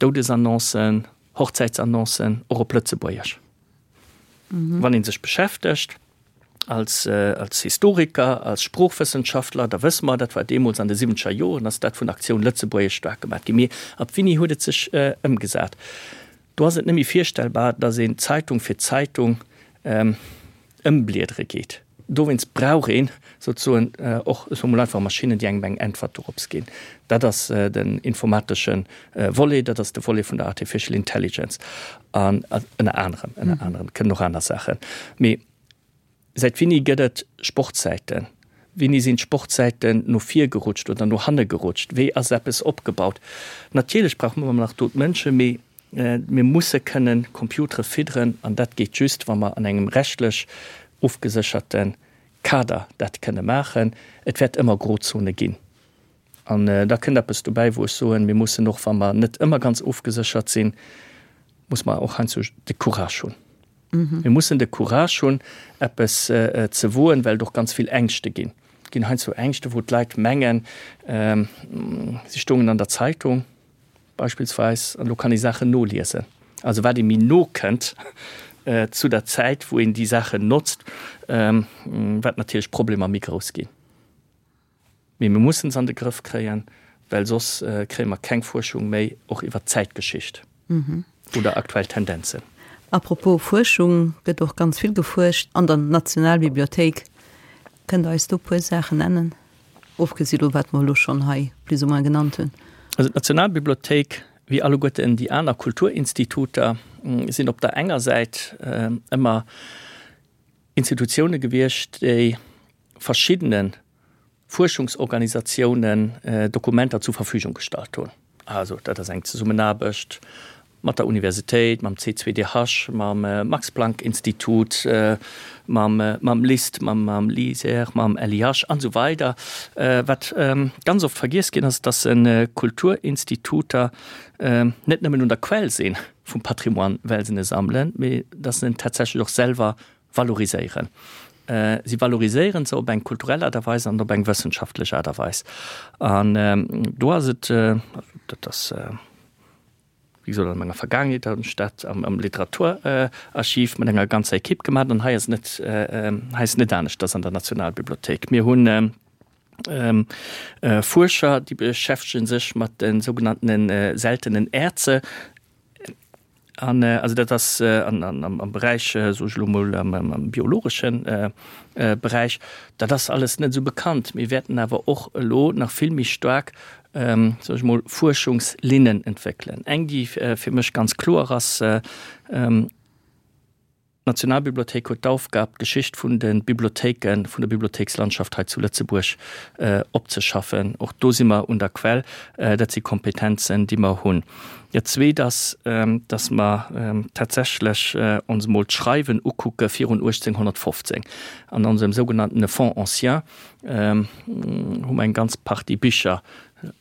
Doudesannoncen, Hochzäitsannoncen och op Lëtzebuergesch? Wann ee sech beschäftegt als, als Historiker, als Sproochwëssenschaftler, da wësse mer, dat war deemools an de siwwenzeger Joren, ass dat vun Aktioun Lëtzebuergesch staark gemaat ginn. Mee ab wéini huet et sech ëmgesat? Do ass et net méi virstellbar, datt een Zeitung fir Zeitung ëmbliedere geet. Dowéinst brauch een souzesoen och, ech soe mol einfach, Maschinnen, déi engem eng Äntwert dorops ginn. Dat ass den informatesche Volet, dat ass de Volet vun der Artificial Intelligence an ënner anerem, ënner anerem, et kënnen och aner Saachen. Mee säit wéini gëtt et Sportsäiten? Wéini sinn d'Sportsäiten no vir gerutscht oder no hanne gerutscht? Wéi ass eppes opgebaut? Natierlech brauche mer ëmmer nach do d'Mënschen, mee. Mir musse kënnen Computere fidderen an dat geet just, wa mer an engem rechtlech ofgesécherte Kader dat kënne maachen. Et wäert ëmmer Grozone ginn. An da kënnt eppes dobäi, wou ech soen, mir mussen och, wa mer net ëmmer ganz ofgeséchert sinn, muss mer och heiansdo de Courage hunn. Mir mussen de Courage hunn, eppes ze woen, well et och ganz vill Ängschte ginn. Et ginn heiansdo Ängschte, wou d'Leit mengen, si stoungen an der Zeitung beispillsweis, an elo kann ee Saachen noliesen. Also wat ee méi no kënnt zu der Zäit, wou een déi Saachen notzt, wat natierlech d'Problemer méi grouss ginn. Mee mir mussen se an de Grëff kréien, well soss kréie mer keng Fuerschung méi, och iwwert d'Zäitgeschicht oder aktuell Tendenzen. A propos Fuerschung, gëtt och ganz vill gefuerscht an der Nationalbibliothéik. Kënnt Der eis do e puer Saachen nennen, ofgesi lo wat mer elo schonn hei plus ou moins genannt hunn? Also d'Nationalbibliothéik, wéi alleguerten déi aner Kulturinstituter, sinn op der enger Säit ëmmer Institutioune gewiescht, déi verschiddene Fuerschungsorganisatiounen Dokumenter zur Verfügung gestallt hunn. Also dat ass eng Zesummenaarbecht mat der Universitéit, mam C2DH, mam Max-Planck-Institut, mam mam LIST, mam mam LISER, mam LIH an esou weider. Wat ganz oft vergiess ginn ass, dass Kulturinstituter net nëmmen un der Quell si vum Patrimoine, well se e sammelen, mee dass se en tatsächlech och selwer valoriséieren. Si valoriséieren se op eng kulturell Aart a Weis an op eng wëssenschaftlech Aart a Weis. An do ass et, dat ass, wéi gesot, an menger Vergaangenheet hunn ech dat am Literaturarchiv mat enger ganzer Ekipp gemaach an hei ass et net, hei ass et net aneschters an der Nationalbibliothéik. Mir hunn Fuerscher, déi beschäftege sech mat de sougenannten seltenen Erze. An also dat ass am Beräich, soe ech elo mol, am biologesche Beräich, dat ass alles net esou bekannt. Mir wäerten awer och elo nach vill méi staark, soe ech mol, Fuerschungslinnen entwéckelen. Eng, déi fir mech ganz kloer ass, D'Nationalbibliothéik huet d'Aufgab, d'Geschicht vun de Bibliothéiken, vun der Bibliothéikslandschaft hei zu Lëtzebuerg opzeschaffen. Och do si mer un der Quell. Dat si Kompetenzen, déi mer hunn. Dat Zweet ass, dass mer tatsächlech ons emol d'Schreiwen ukucke virun 1815. An onsem sougenanntene Fonds ancien hu mer eng ganz Partie Bicher,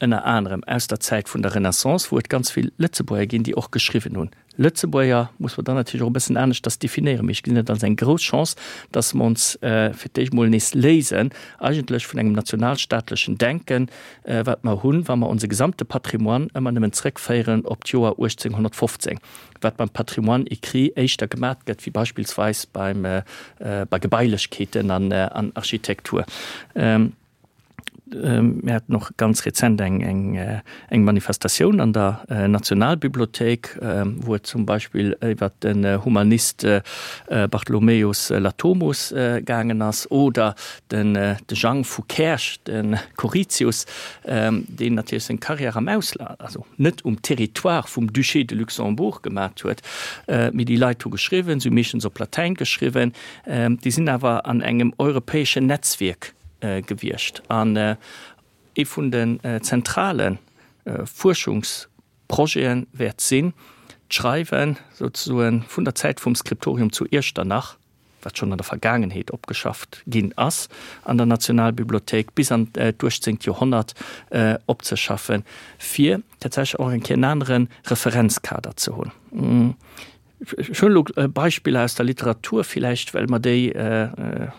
ënner anerem aus der Zäit vun der Renaissance, wou et ganz vill Lëtzebuerger ginn, déi och geschriwwen hunn. Lëtzebuerger muss mer dann natierlech och e bëssen aneschters definéieren, mee ech gesinn et als eng grouss Chance, dass mer ons fir d'éischt emol nees léisen eigentlech vun engem nationalstaatlechen Denken, wat mer hunn, wa mer onse gesamte Patrimoine ëmmer nëmmen zrëckféieren op d'Joer 1815, wat beim Patrimoine écrit éischter gemat gëtt wéi beispillsweis beim, bei Gebailechkeeten an Architektur. Mir haten och ganz rezent eng, eng, eng Manifestatioun an der Nationalbibliothéik, wou et zum Beispill iwwert den Humanist Bartholomäus Latomus gaangen ass oder den de Jang vu Käerch, de Choritius, deen natierlech seng Carrière am Ausland, also net um Territoire vum Duché de Luxembourg gemat huet, mee déi Leit hu geschriwwen, se hu meeschtens op Latäin geschriwwen, déi sinn awer an engem europäeschen Netzwierk gewiescht an ee vun den zentrale Fuerschungsprojete wäert sinn, d'Schreiwe souzesoe vun der Zäit vum Skriptorium zu Iechternach, wat schonn an der Vergaangenheet opgeschafft ginn ass an der Nationalbibliothéik, bis an d'uechtzéngt Joerhonnert opzeschaffen, fir tatsächlech och eng Kéier en anere Referenzkader ze hunn. Ech hunn elo Beispiller aus der Literatur villäicht, well mer déi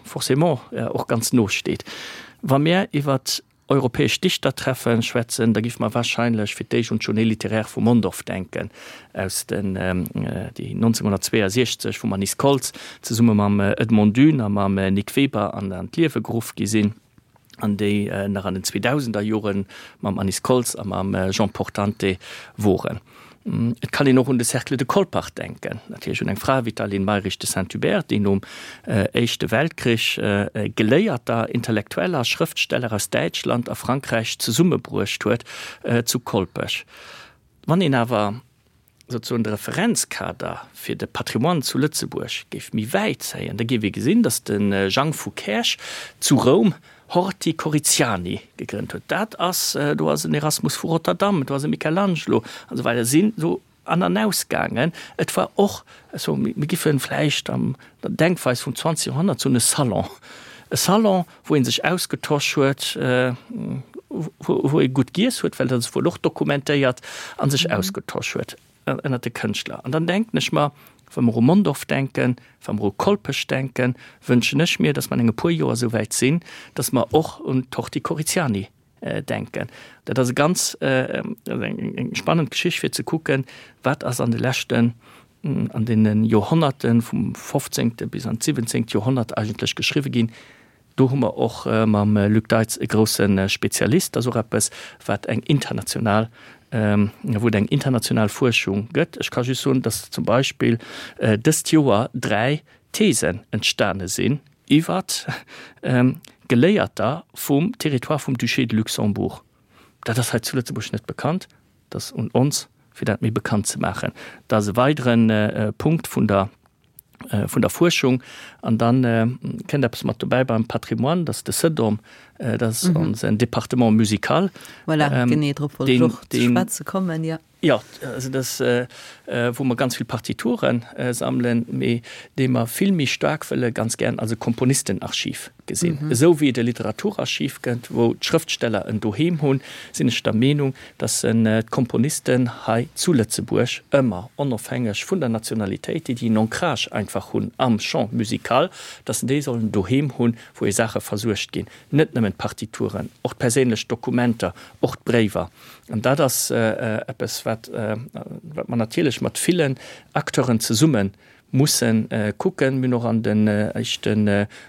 forcément och ganz no steet. Wa mir iwwer europäesch Dichtertreffen schwätzen, da géife mer wahrscheinlech fir d'éischt un d'Journée littéraire vu Mondorf denken, aus den, déi 1962 vum Anise Koltz zesumme mam Edmond Dune a mam Nic Weber an d'Liewe geruff gi sinn. an déi nach an den 2000er Jore mam Anise Koltz a mam Jean Portante woren. Et kann een och un de Cercle de Colpach denken, natierlech un eng Fra wéi d'Aline Mayrisch de Saint-Hubert, déi nom Éischte Weltkrich Geléierter, Intellektueller, Schrëftsteller aus Däitschland a Frankräich zesummebruecht huet zu Kolpech. Wann een awer souzesoen de Referenzkader fir de Patrimoine zu Lëtzebuerg géif méi wäit zéien, da géif ee gesinn, datt de Jang vu Käerch zu Roum Horti Coritiani gegrënnt huet. Dat ass, do ass en Erasmus vu Rotterdam, do ass e Michelangelo an esou weider sinn esou. An an Ausgaangen. Et war och esou, mir giffen vläicht an der Denkweis vum 20. Joerhonnert soen, e Salon. E Salon, wou ee sech ausgetosch huet, wou ee gutt giess huet, well dat ass wuel och dokumentéiert, a sech ausgetosch huet ënnert de Kënschtler. An dann denken ech mer, wa mer u Mondorf denken, wa mer u Kolpech denken, wënschen ech mir, datt mer an enge puer Joer esou wäit sinn, datt mer och un d'Horti Coriziani denken. Dat ass e ganz eng spannend Geschicht fir ze kucken, wat ass an de leschten, an deene Joerhonnerten vum fofzéngte bis an d'siwwenzéngt Joerhonnert eigentlech geschriwwe ginn. Do hu mer och mam Luc Deitz e grousse Spezialist. Dat ass och eppes, wat eng international, wou et eng international Fuerschung gëtt. Ech ka just soen, datt zum Beispill dëst Joer 3 Thesen entstane sinn iwwer Geléierter vum Territoire vum Duché de Luxembourg. Dat ass hei zu Lëtzebuerg net bekannt. Dat ass un ons, fir dat méi bekannt ze maachen. Dat ass e weidere Punkt vun der vun der Fuerschung. An dann kënnt eppes mat dobäi beim Patrimoine, dat ass de CEDOM, dat ass onsen Département musical. Voilà, genee drop wollt ech och ze schwätze kommen, jo. Jo, also dat, wou mer ganz vill Partiture sammelen, mee dee mer vill méi staark wëlle ganz gären als e Komponistenarchiv gesinn. Esou wéi et e Literaturarchiv gëtt, wou d'Schrëftsteller en Doheem hunn, sinn ech der Meenung, datt d'Komponisten hei zu Lëtzebuerg ëmmer, onofhängeg vun der Nationalitéit, déi déi en Ancrage einfach hunn am Champ musical, datt se déi sollen doheem hunn, wou hir Saache versuergt ginn. Net nëmmen d'Partituren, och d'perséinlech Dokumenter, och d'Bréiwer. An dat ass eppes, wat mer natierlech mat villen Acteuren zesumme musse kucken. Mir hunn och an den éischte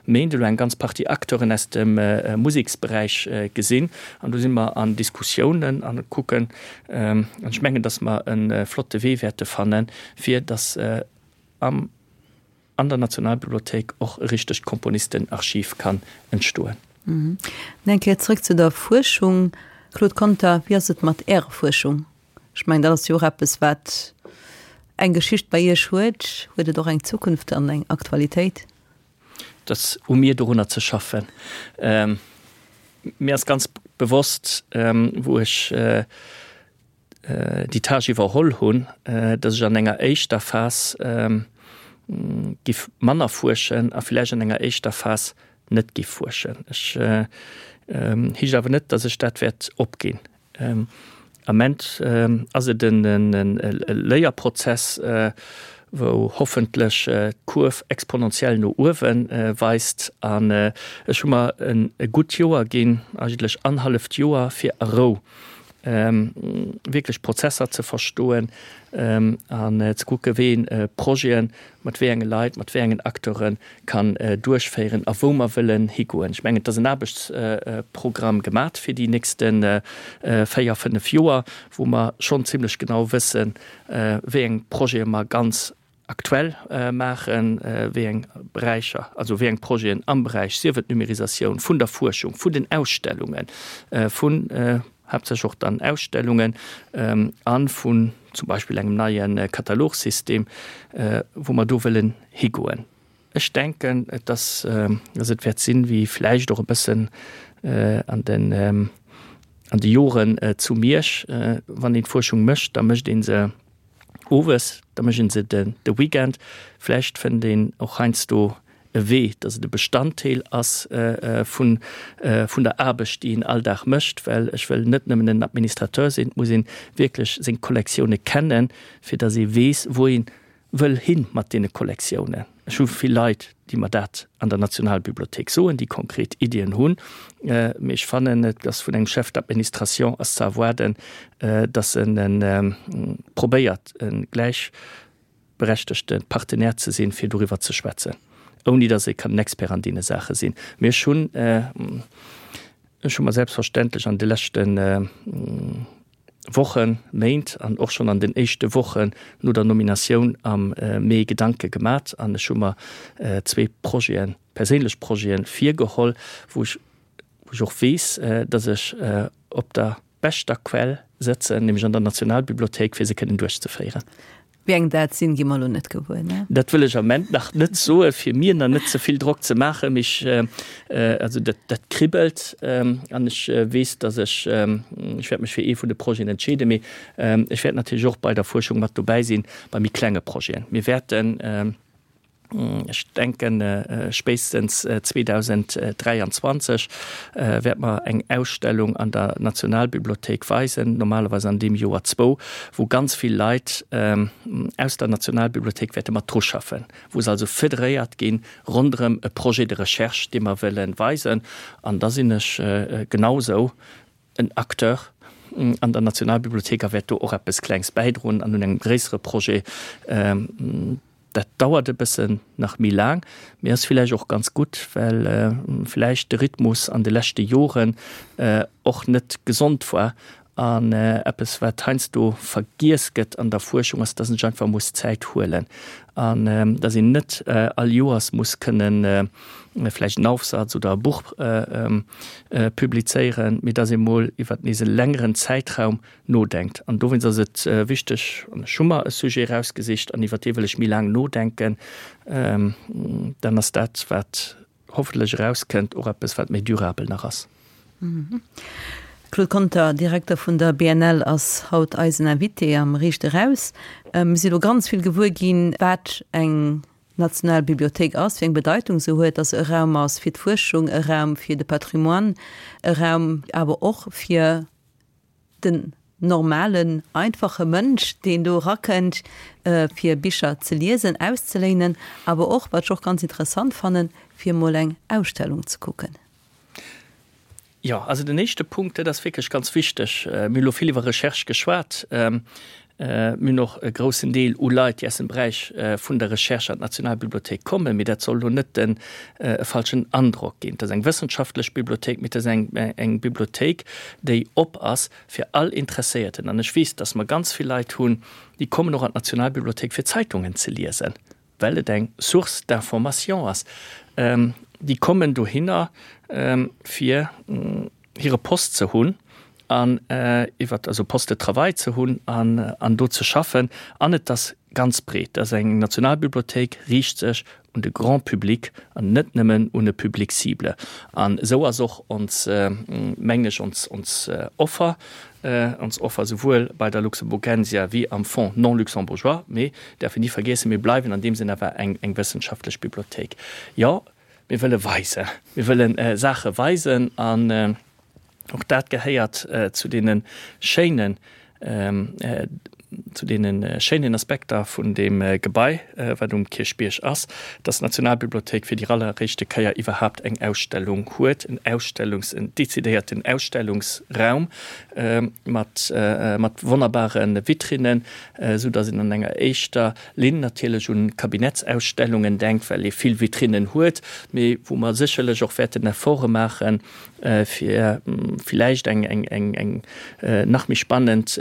Méint elo eng ganz Partie Acteuren aus dem Museksberäich gesinn. An do si mer an Diskussiounen a kucken. An ech mengen, datt mer e flotte Wee wäerte fannen, fir datt am an der Nationalbibliothéik och e richtegt Komponistenarchiv kann entstoen. Eng Kéier zrëck zu der Fuerschung, Claude Conter, Wéi ass et mat Ärer Fuerschung? Ech mengen, dat ass jo och eppes, wat eng Geschicht bei Iech huet. Huet et och eng Zukunft an eng Aktualitéit? Et ass u mir, dorunner ze schaffen. Mir ass ganz bewosst, wou ech déi Tâche iwwerholl hunn, dass ech an enger éischter Phas giff manner fuerschen a villäicht an enger éischter Phas net giff fuerschen. Ech heescht awer net, dass ech dat wäert opginn. Ament ass et en Léierprozess, wou hoffentlech d'Kurv exponentiell no uewe weist. An ech hu mer e gutt Joer ginn, eigentlech annerhalleft Joer, fir a Rou wierklech Prozesser ze verstoen an ze kucke wéi een Projeten mat wéi enge Leit, mat wéi engen Acteure kann duerchféieren a wou mer wëllen higoen. Ech mengen, et ass en Aarbechtsprogramm gemat fir déi nächste 4, 5 Joer, wou mer schonn zimlech genau wëssen, wéi eng Projete mer ganz aktuell maachen, wéi eng Beräicher, also wéi eng Projeten am Beräich, sief et Numérisatioun vun der Fuerschung, vun den Ausstellungen, vun haaptsächlech och dann Ausstellungen a vun zum Beispill engem neie Katalogsystem, wou mer do wëllen higoen. Ech denken, dass et wäert sinn, wéi vläicht och e bëssen an den an de Joren zu Miersch, wann een d'Fuerschung mécht, da mécht ee se owes, da mécht een se de de Weekend. Vläicht fënnt een och heiansdo e Wee, dass et e Bestanddeel ass vun vun der Aarbecht, déi een all Dag mécht, well ech wëll net nëmmen en Administrateur sinn, et muss een wierklech seng Kollektioune kennen, fir dass ee weess, wou ee wëll hin mat deene Kollektiounen. Ech hu vill Leit, déi mer dat an der Nationalbibliothéik soen, déi konkret Iddien hunn, mee ech fannen, et ass vun engem Chef d'administration ass ze erwaarden, dass en probéiert, e gläichberechtegte Partenaire ze sinn, fir doriwwer ze schwätzen, ouni dass ee kann en Expert an deene Saache sinn. Mee ech hunn, ech hu mer selbstverständlech an de leschte Wochen, Méint an och schonn an den éischte Wochen no der Nominatioun am Mee Gedanke gemat an ech hu mer zwee Projeten, perséinlech Projeten virgeholl, wou ech, wou ech och weess, dass ech op der beschter Quell sëtzen, nämlech an der Nationalbibliothéik, fir se kënnen duerchzeféieren. Wéi eng dat sinn, gi mer elo net gewuer, ne? Dat wëll ech am Ament nach net soen, fir mir nach net ze vill Drock ze maachen. Mee ech, also dat, dat kribbelt an ech weess, datt ech, ech wäert mech fir ee vun de Projeten entscheeden, mee ech wäert natierlech och bei der Fuerschung mat dobäi sinn, bei méi klenge Projeten. Mir wäerten. Ech denken, spéitstens 2023 wäerte mer eng Ausstellung an der Nationalbibliothéik weisen, normalerweis an deem Joer zwou, wou ganz vill Leit aus der Nationalbibliothéik wäerte mat dru schaffen, wou se also federéiert gi ronderëm e Projet de recherche, dee mer wëlle weisen. An da sinn ech genausou en Acteur an der Nationalbibliothéik a wäert do och eppes Klengs bäidroen an un engem gréissere Projet. Dat dauert e bëssen nach méi laang, mee ass villäicht och ganz gutt, well villäicht de Rhythmus an de leschte Joren och net gesond war. An eppes, wat heiansdo vergiess gëtt an der Fuerschung, ass, dass een sech einfach muss Zäit huelen an dass een net all Joers muss kënnen vläicht en Aufsatz oder e Buch publizéieren, mee dass ee mol iwwer nees e längeren Zäitraum nodenkt. An dowéinst ass et wichteg, an ech hu mer e Sujet erausgesicht an iwwer dee wëll ech méi laang nodenken, dann ass dat, wat hoffentlech erauskënnt, och eppes, wat méi durabel nach ass. Claude Conter, Direkter vun der BNL, ass haut eisen Invité am Riicht Eraus. Mir si lo ganz vill gewuer ginn, wat eng national Bibliothéik ass, wéi eng Bedeitung se huet, dass se e Raum ass fir d'Fuerschung, e Raum fir de Patrimoine, e Raum awer och fir den normalen, einfache Mënsch, deen do erakënnt, fir Bicher ze liesen, auszeléinen, awer och, wat ech och ganz interessant fannen, fir emol eng Ausstellung ze kucken. Jo, also den éischte Punkt, dat ass wierklech ganz wichteg. Mir hu lo vill iwwer Recherche geschwat. Mir hunn och e groussen Deel u Leit, déi aus dem Beräich vun der Recherche an d'Nationalbibliothéik kommen. Mee dat soll elo net den e falschen Androck ginn. Et ass eng wëssenschaftlech Bibliothéik, mee et ass eng eng Bibliothéik, déi op ass fir all Interesséierten. An ech weess, dass mer ganz vill Leit hunn, déi kommen och an d'Nationalbibliothéik fir Zeitungen ze liesen, well et eng Source d'information ass. Déi kommen dohinner fir hire Poste ze hunn an iwwer also Poste de travail ze hunn an an do ze schaffen. An et ass ganz breet. Et ass eng Nationalbibliothéik, riicht sech un de Grand public an net nëmmen un e Public cible. An esou ass och ons, mengen ech, ons ons Offer, ons Offer souwuel bei der Luxemburgensia wéi am Fonds non luxembourgeois. Mee däerf een ni vergiessen, mir bleiwen an deem Sënn awer eng eng wëssenschaftlech Bibliothéik. Jo, mir wëlle weisen, mir wëlle Saache weisen an Och dat gehéiert zu deene schéinen, zu deene schéinen Aspekter vun deem Gebai, wat um Kierchbierg ass, dass d'Nationalbibliothéik fir déi alleréischte Kéier iwwerhaapt eng Ausstellung huet, en Ausstellungs-, en decidéierten Ausstellungsraum mat, mat wonnerbare Vitrinnen, esou dass een an enger éischter Linn natierlech un Kabinettsausstellungen denkt, well ee vill Vitrinnen huet, mee wou mer sécherlech och wäerten Efforte maachen, fir villäicht eng eng eng eng nach méi spannend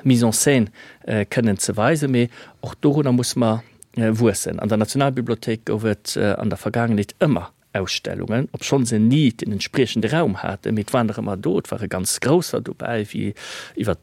Mise en scène kënnen ze weisen. Mee och dorunner musse mer wuessen. An der Nationalbibliothéik gouf et an der Vergaangenheet ëmmer Ausstellungen, obschonn se ni den entspriechende Raum haten, mee et waren der ëmmer do. Et ware ganz grousser dobäi, wéi iwwer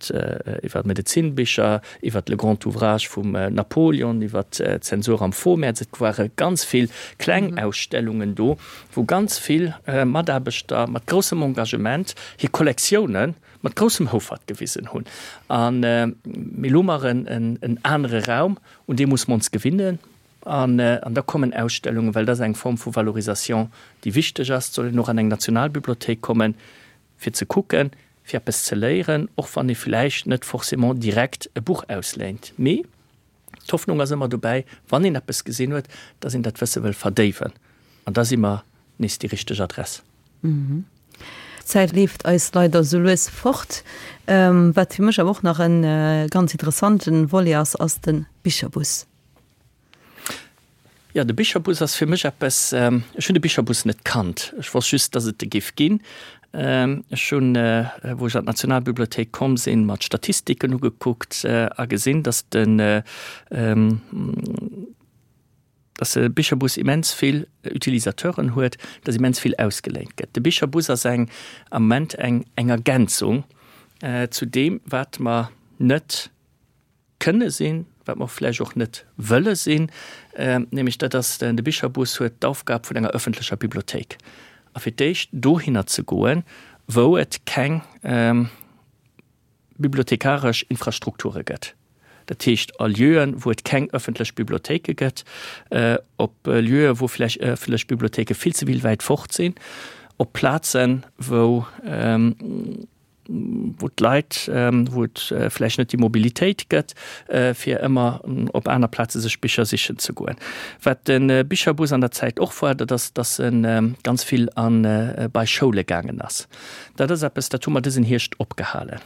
iwwer Medezinbicher, iwwer le grand ouvrage vum Napoleon, iwwer d'Zensur am Vormärz. Et ware ganz vill kleng Ausstellungen do. wou ganz vill Mataarbechter mat groussem Engagement hir Kollektioune mat groussem Houfert gewisen hunn. A mee elo hu mer en anere Raum, un dee musse mer ons gewinnen. An da kommen Ausstellungen, well dat ass eng Form vu Valorisation, déi wichteg ass. Et soll een och an eng Nationalbibliothéik kommen, fir ze kucken, fir eppes ze léieren, och wann ee vläicht net forcément direkt e Buch ausléint. Mee D'Hoffnung ass ëmmer dobäi, wann een eppes gesinn huet, dass een dat Wësse wëll verdéiwen. An da si mer nees déi richteg Adress. D'Zäit leeft eis leider esou lues fort. Wat fir mech awer och nach e ganz interessante Volet ass, ass de Bicherbus. Jo, de Bicherbus ass fir mech eppes, ech hunn de Bicherbus net kannt, ech wosst just, dass et e géif ginn. Ech hunn, wou ech an d'Nationalbibliothéik komm sinn, mer d'Statistiken ugekuckt a gesinn, dass den, dass de Bicherbus immens vill Utilisateuren huet, dass immens vill ausgeléint gëtt. De Bicherbus ass eng, am Moment eng, eng Ergänzung zu deem, wat mer net kënne sinn. wat mer vläicht och net wëlle sinn, nämlech dat ass, de Bicherbus huet d'Aufgab vun enger öffentlecher Bibliothéik. A fir d'éischt dohinner ze goen, wou et keng bibliothekaresch Infrastrukture gëtt, dat heescht a Lieuen, wou et keng öffentlech Bibliothéike gëtt, op Lieuen, wou vläicht öffentlech Bibliothéike vill ze vill wäit fort sinn, op Plazen, wou wou d'Leit, wou et vläicht net déi Mobilitéit gëtt, fir ëmmer op aner Plaze sech Bicher sichen ze goen. Wat de Bicherbus an der Zäit och war, dat ass, dass e ganz vill a bei Schoule gaangen ass. Dat ass eppes, dat hu mer dësen Hierscht opgehalen.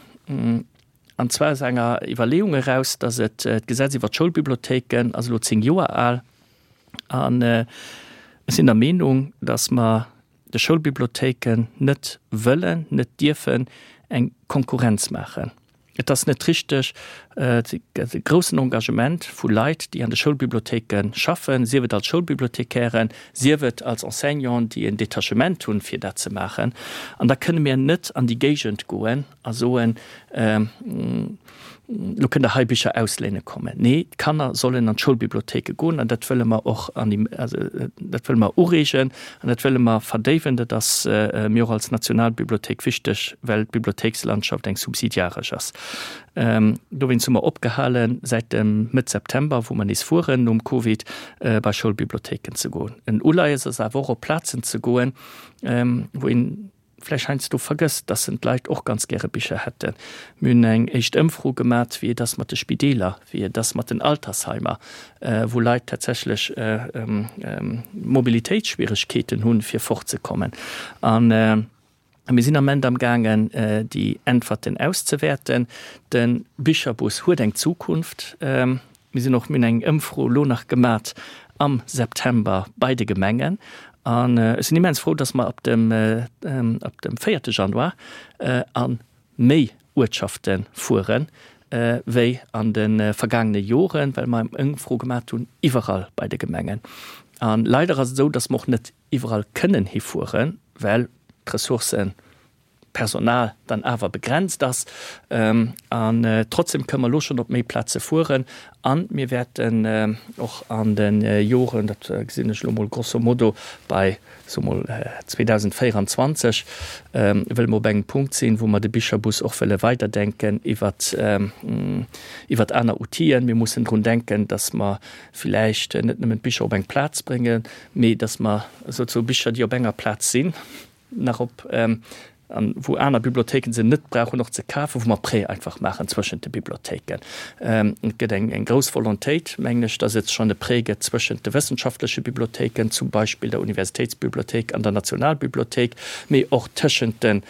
An zwar aus enger Iwwerleeung eraus, dass et d'Gesetz iwwer d'Schoulbibliothéiken ass elo 10 Joer al. An ech sinn der Meenung, dass mer de Schoulbibliothéiken net wëllen, net dierfen eng Konkurrenz maachen. Et ass net richteg, et gëtt e groussen Engagement vu Leit, déi an de Schoulbibliothéike schaffen, sief et als Schoulbibliothekären, sief et als Enseignanten, déi en Detachement hunn, fir dat ze maachen. An da kënne mir net an déi Géigend goen a soen, Lo kënnt der hei Bicher ausléine kommen. Nee, d'Kanner sollen an d'Schoulbibliothéike goen an dat wëlle mer och an déi, also dat wëlle mer ureegen an dat wëlle mer verdéiwen. Dat ass mir och als Nationalbibliothéik wichteg, well d'Bibliothéikslandschaft eng subsidiaresch ass. Dowéinst hu mer opgehale säit dem Mëtt September, wou mer nees fueren nom Covid, bei Schoulbibliothéiken ze goen. En Uleies ass awer och op Plazen ze goen, wou een, vläicht heiansdo vergësst, dass en d'Leit och ganz gäre Bicher hätten. Mir hunn eng éischt Ëmfro gemat, wéi et ass mat de Spideeler, wéi et ass mat den Altersheimer, wou Leit tatsächlech Mobilitéitsschwieregkeeten hunn, fir fortzekommen. A mir sinn am Ament amgaangen, déi Äntwerten auszewäerten. De Bicherbus huet eng Zukunft. Mir sinn och, mir hunn eng Ëmfro elo nach gemat am September bei de Gemengen an ech sinn immens frou, dass mer ab dem, ab dem véierte Januar a méi Uertschafte fuere wéi an de vergaangene Joren, well mer eng Ëmfro gemat hunn iwwerall bei de Gemengen. A leider ass et esou, dass mer och net iwwerall kënnen hifueren, well d'Ressourcen, Personal dann awer begrenzt ass. An trotzdem kënnen mer elo schonn op méi Plaze fueren a mir wäerten och an de Joren, dat gesinn ech elo mol grosso modo bei, soe mol 2024, wëlle mer op engem Punkt sinn, wou mer de Bicherbus och wëlle weiderdenken iwwert, iwwert aner Outiller. Mir mussen drun denken, dass mer villäicht net nëmmen d'Bicher op eng Plaz bréngen, mee dass mer souzesoe Bicher, déi op enger Plaz sinn, nach op an wou aner Bibliothéiken se net brauchen och ze kafen, wou mer Prêt einfach maachen zwëschent de Bibliothéiken. Et gëtt eng eng grouss Volontéit, mengen ech, dass et schonn e Prêt gëtt zwëschent de wëssenschaftleche Bibliothéiken, zum Beispill der Universitéitsbibliothéik an der Nationalbibliothéik, mee och tëschent den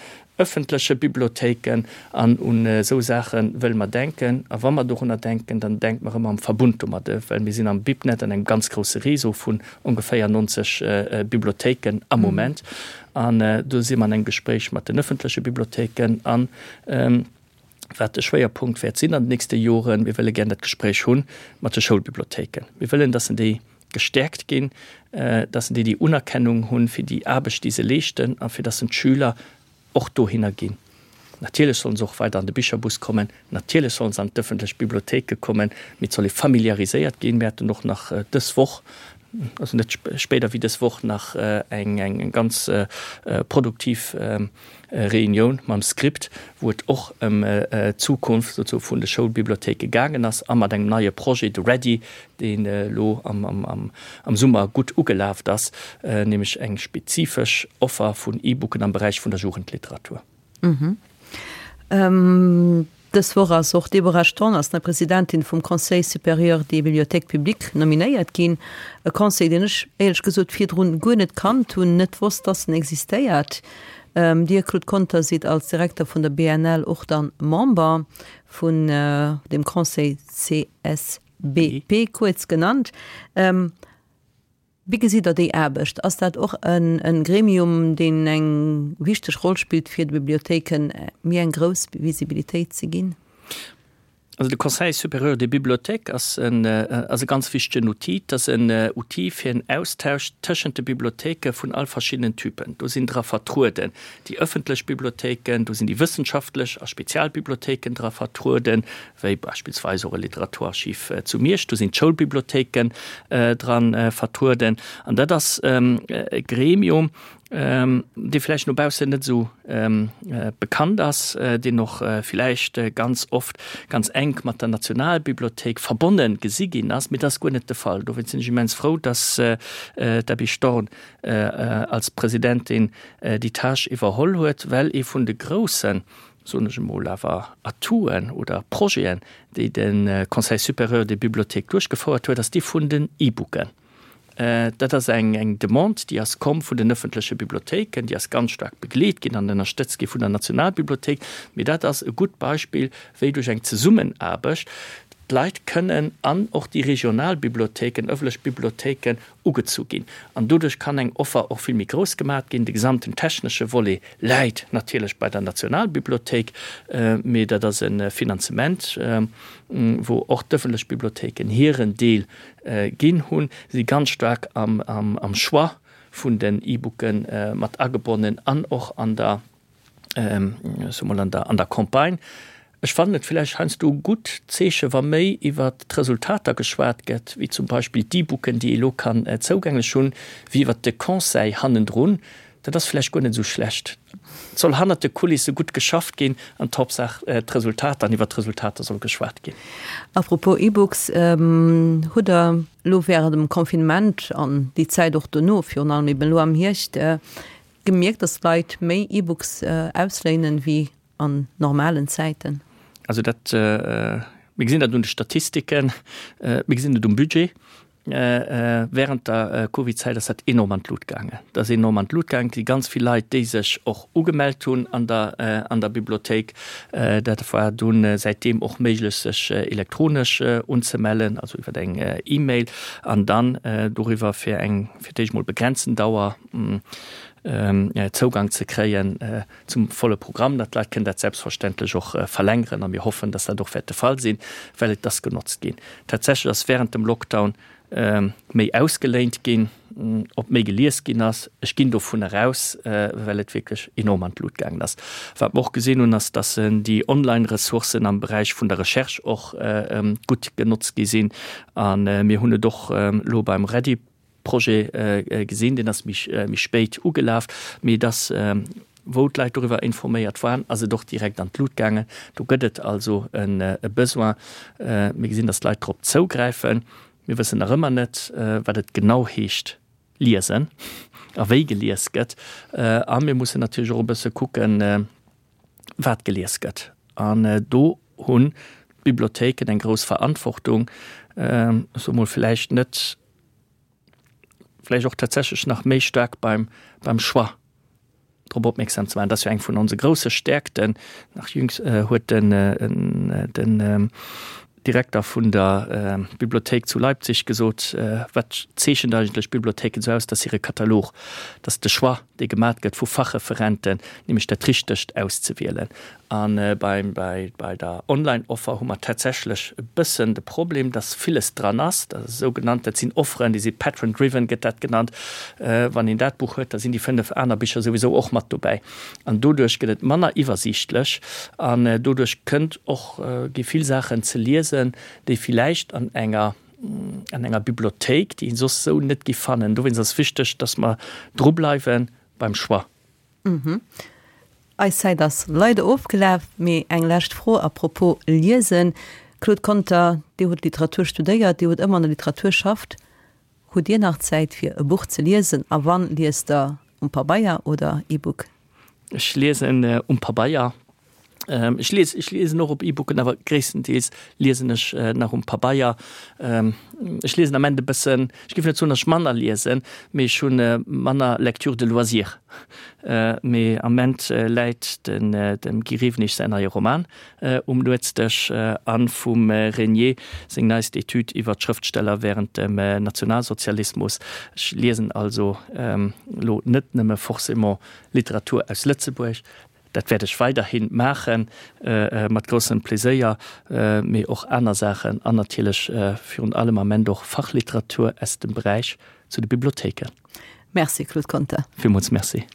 ëffentleche Bibliothéiken. An un esou Saache wëlle mer denken. A wa mer dorunner denken, dann denke mer ëmmer am Verbund domadde, well mir sinn am BibNet an engem ganz grousse Réseau vun ongeféier 90 Bibliothéiken am Moment. An do si mer an engem Gespréich mat den ëffentleche Bibliothéiken. An wat de Schwéierpunkt wäert sinn an den nächste Joren, mir wëlle gär dat Gespréich hu mat de Schoulbibliothéiken. Mir wëllen, dass en déi gestäerkt ginn, dass en déi déi Unerkennung hunn fir déi Aarbecht, déi se leeschten a fir dass en d'Schüler och dohinner ginn. Natierlech sollen se och weider an de Bicherbus kommen, natierlech sollen se an d'ëffentlech Bibliothéike kommen, mee et soll ee familiariséiert ginn. Mir haten och nach dës Woch, also net spéider wéi dës Woch, nach eng ganz produktiv Reunioun mam Script, wou et och ëm d'Zukunft souzesoe vun de Schoulbibliothéike gaangen ass a mat engem neie Projet, de Ready, deen elo am Summer gutt ugelaft ass, nämlech eng spezifesch Offer vun E-Booken am Beräich vun der Jugendliteratur. Dës Woch ass och d'Deborah Storn als nei Presidentin vum Conseil supérieur des bibliothèques publiques nominéiert ginn. E Conseil, deen ech éierlech gesot virdrun guer net kannt hunn, net wosst, dass en existéiert. Dir, Claude Conter, sidd als Direkter vun der BNL och dann Member vun deem Conseil CSBP kuerz genannt. Wéi gesitt Der déi Aarbecht? Ass dat och e Gremium, deen eng wichteg Roll spillt, fir de Bibliothéike méi eng grouss Visibilitéit ze ginn? Also de Conseil supérieur des bibliothèques ass en ass e ganz wichtegen Outil. Et ass en Outil fir en Austausch tëschent de Bibliothéike vun all verschiddenen Typen. Do sinn dra vertrueden déi ëffentlech Bibliothéiken, do sinn déi wëssenschaftlech a Spezialbibliothéiken dra vertrueden, wéi beispillsweis och e Literaturarchiv zu Miersch. Do sinn d'Schoulbibliothéiken dra vertrueden. An dat ass e Gremium, dee vläicht no baussen net esou bekannt ass, deen och vläicht ganz oft ganz enk mat der Nationalbibliothéik verbonne gesi ginn ass, mee dat ass guer net de Fall. Dowéinst sinn ech immens frou, dass d'Abby Storn als Presidentin déi Tâche iwwerholl huet, well ee vun de groussen, soen ech emol, awer Atouten oder Projeten, déi de Conseil supérieur des bibliothèques duerchgefouert huet, ass dee vun den E-Booken. Dat ass eng Demande, déi ass komm vun den ëffentleche Bibliothéiken, déi ass ganz staark begleet ginn an ënnerstëtzt gi vun der Nationalbibliothéik. Mee dat ass e gutt Beispill, wéi duerch eng Zesummenaarbecht d'Leit kënnen an och déi regional Bibliothéiken, ëffentlech Bibliothéiken ugezu ginn. An doduerch kann eng Offer och vill méi grouss gemat ginn. De gesamten technesche Volet läit natierlech bei der Nationalbibliothéik, mee dat ass e Finanzement, wou och d'ëffentlech Bibliothéiken hiren Deel Ginn hunn, si ganz staark am Choix vun den E-Booke mat agebonnen an och an der, ech soe mol, an der, an der Campagne. Ech fannen et vläicht heiansdo e gutt Zeeche wa méi iwwert d'Resultater geschwat gëtt, wéi zum Beispill d'E-Booken, déi ee lo kann zougänglech hunn, wéi iwwert de Conseil hannendrun. Dat ass vläicht guer net esou schlecht. Et soll hannert de Kulisse gutt geschafft ginn an d'Hauptsaach d'Resultater an iwwert d'Resultater soll geschwat ginn. A propos E-Books, Hutt Der elo während dem Confinement an déi Zäit och dono, virun allem eben elo am Hierscht, gemierkt, dass d'Leit méi E-Books ausléinen wéi an normalen Zäiten? Also dat, mir gesinn dat un de Statistiken, mir gesinn et um Budget. Während der Covid-Zäit ass dat enorm an d'Lut gaangen. Dat ass enorm an d'Lut gaangen. Et si ganz vill Leit, déi sech och ugemellt hunn an der, an der Bibliothéik. Dat war dunn säitdeem och méiglech, sech elektronesch unzemellen, also iwwer eng E-Mail an dann doriwwer fir eng, fir d'éischt mol begrenzten Dauer Zougang ze kréien zum volle Programm. Dat d'Leit kënnen dat selbstverständlech och verlängeren a mir hoffen, dass dat och wäert de Fall sinn, well et ass genotzt ginn. Tatsächlech ass während dem Lockdown méi ausgeléint ginn, ob méi gelies ginn ass, ech ginn dovun eraus, well et wierklech enorm an d'Lut gaangen ass. Wat mer och gesinn hunn, ass, dass déi Online-Ressourcen am Beräich vun der Recherche och gutt genotzt gi sinn a mir hunn et och elo beim Ready. Projet gesinn, deen ass méi spéit ugelaf, mee et ass, wou d'Leit doriwwer informéiert waren, ass et och direkt an d'Lut gaangen. Do gëtt et also e Besoin. Mir gesinn, datt d'Leit drop zougräifen. Mir wëssen nach ëmmer net, wat et genau heescht liesen a wéi gelies gëtt. A mir mussen natierlech och e bësse kucken, wat gelies gëtt. An do hunn d'Bibliothéiken eng grouss Verantwortung, ech soe mol vläicht net, vläicht och tatsächlech nach méi staark beim, beim Choix drop opmierksam ze maachen. Dat ass jo eng vun onse grousse Stäerkten. Nach jüngst huet den, den Direkter vun der Bibliothéik zu Leipzig gesot, Wat zeechent eigentlech Bibliothéiken esou aus? Dat ass hire Katalog, dat ass de Choix, dee gemat gëtt vu Fachreferenten, nämlech dat Richtegt auszewielen. A bei der Online-Offer hu mer tatsächlech e bëssen de Problem, dass villes dran ass, dat ass sougenannt, dat sinn Offeren, déi si patron-driven, gëtt dat genannt. Wann een dat Buch huet, da sinn déi 5 aner Bicher souwisou och mat dobäi. An doduerch gëtt et manner iwwersiichtlech an doduerch kënnt och, gi vill Saachen ze liesen, déi villäicht an enger, an enger Bibliothéik, déi een soss esou net giff fannen. Dowéinst ass wichteg, dass mer drubleiwe beim Choix. Eis Zäit ass leider ofgelaf, mee eng lescht Fro à propos Liesen. Claude Conter, Dir hutt Literatur studéiert, Dir hutt ëmmer an der Literatur schafft. Hutt Dir nach Zäit fir e Buch ze liesen a wann, liest Der um Pabeier oder E-Book? Ech liesen um Pabeier. Ech lies, ech liesen och op E-Booken, awer gréisstendeels liesen ech nach um Pabeier. Ech liesen am Ende e bëssen, ech géif net soen, datt ech manner liesen, mee ech hu manner Lecture de loisir. Mee am Ament läit den dem Guy Rewenig säin neie Roman um Nuetsdësch a vum Régnier seng neist Etüd iwwer d'Schrëftsteller wärend dem Nationalsozialismus. Ech liesen also elo net nëmme forcément Literatur aus Lëtzebuerg. Dat wäert ech weiderhi maachen, mat groussem Pleséier, mee och aner Saachen an natierlech virun allem am Ament och Fachliteratur aus dem Beräich zu de Bibliothéiken. Merci Claude Conter. Villmools Merci.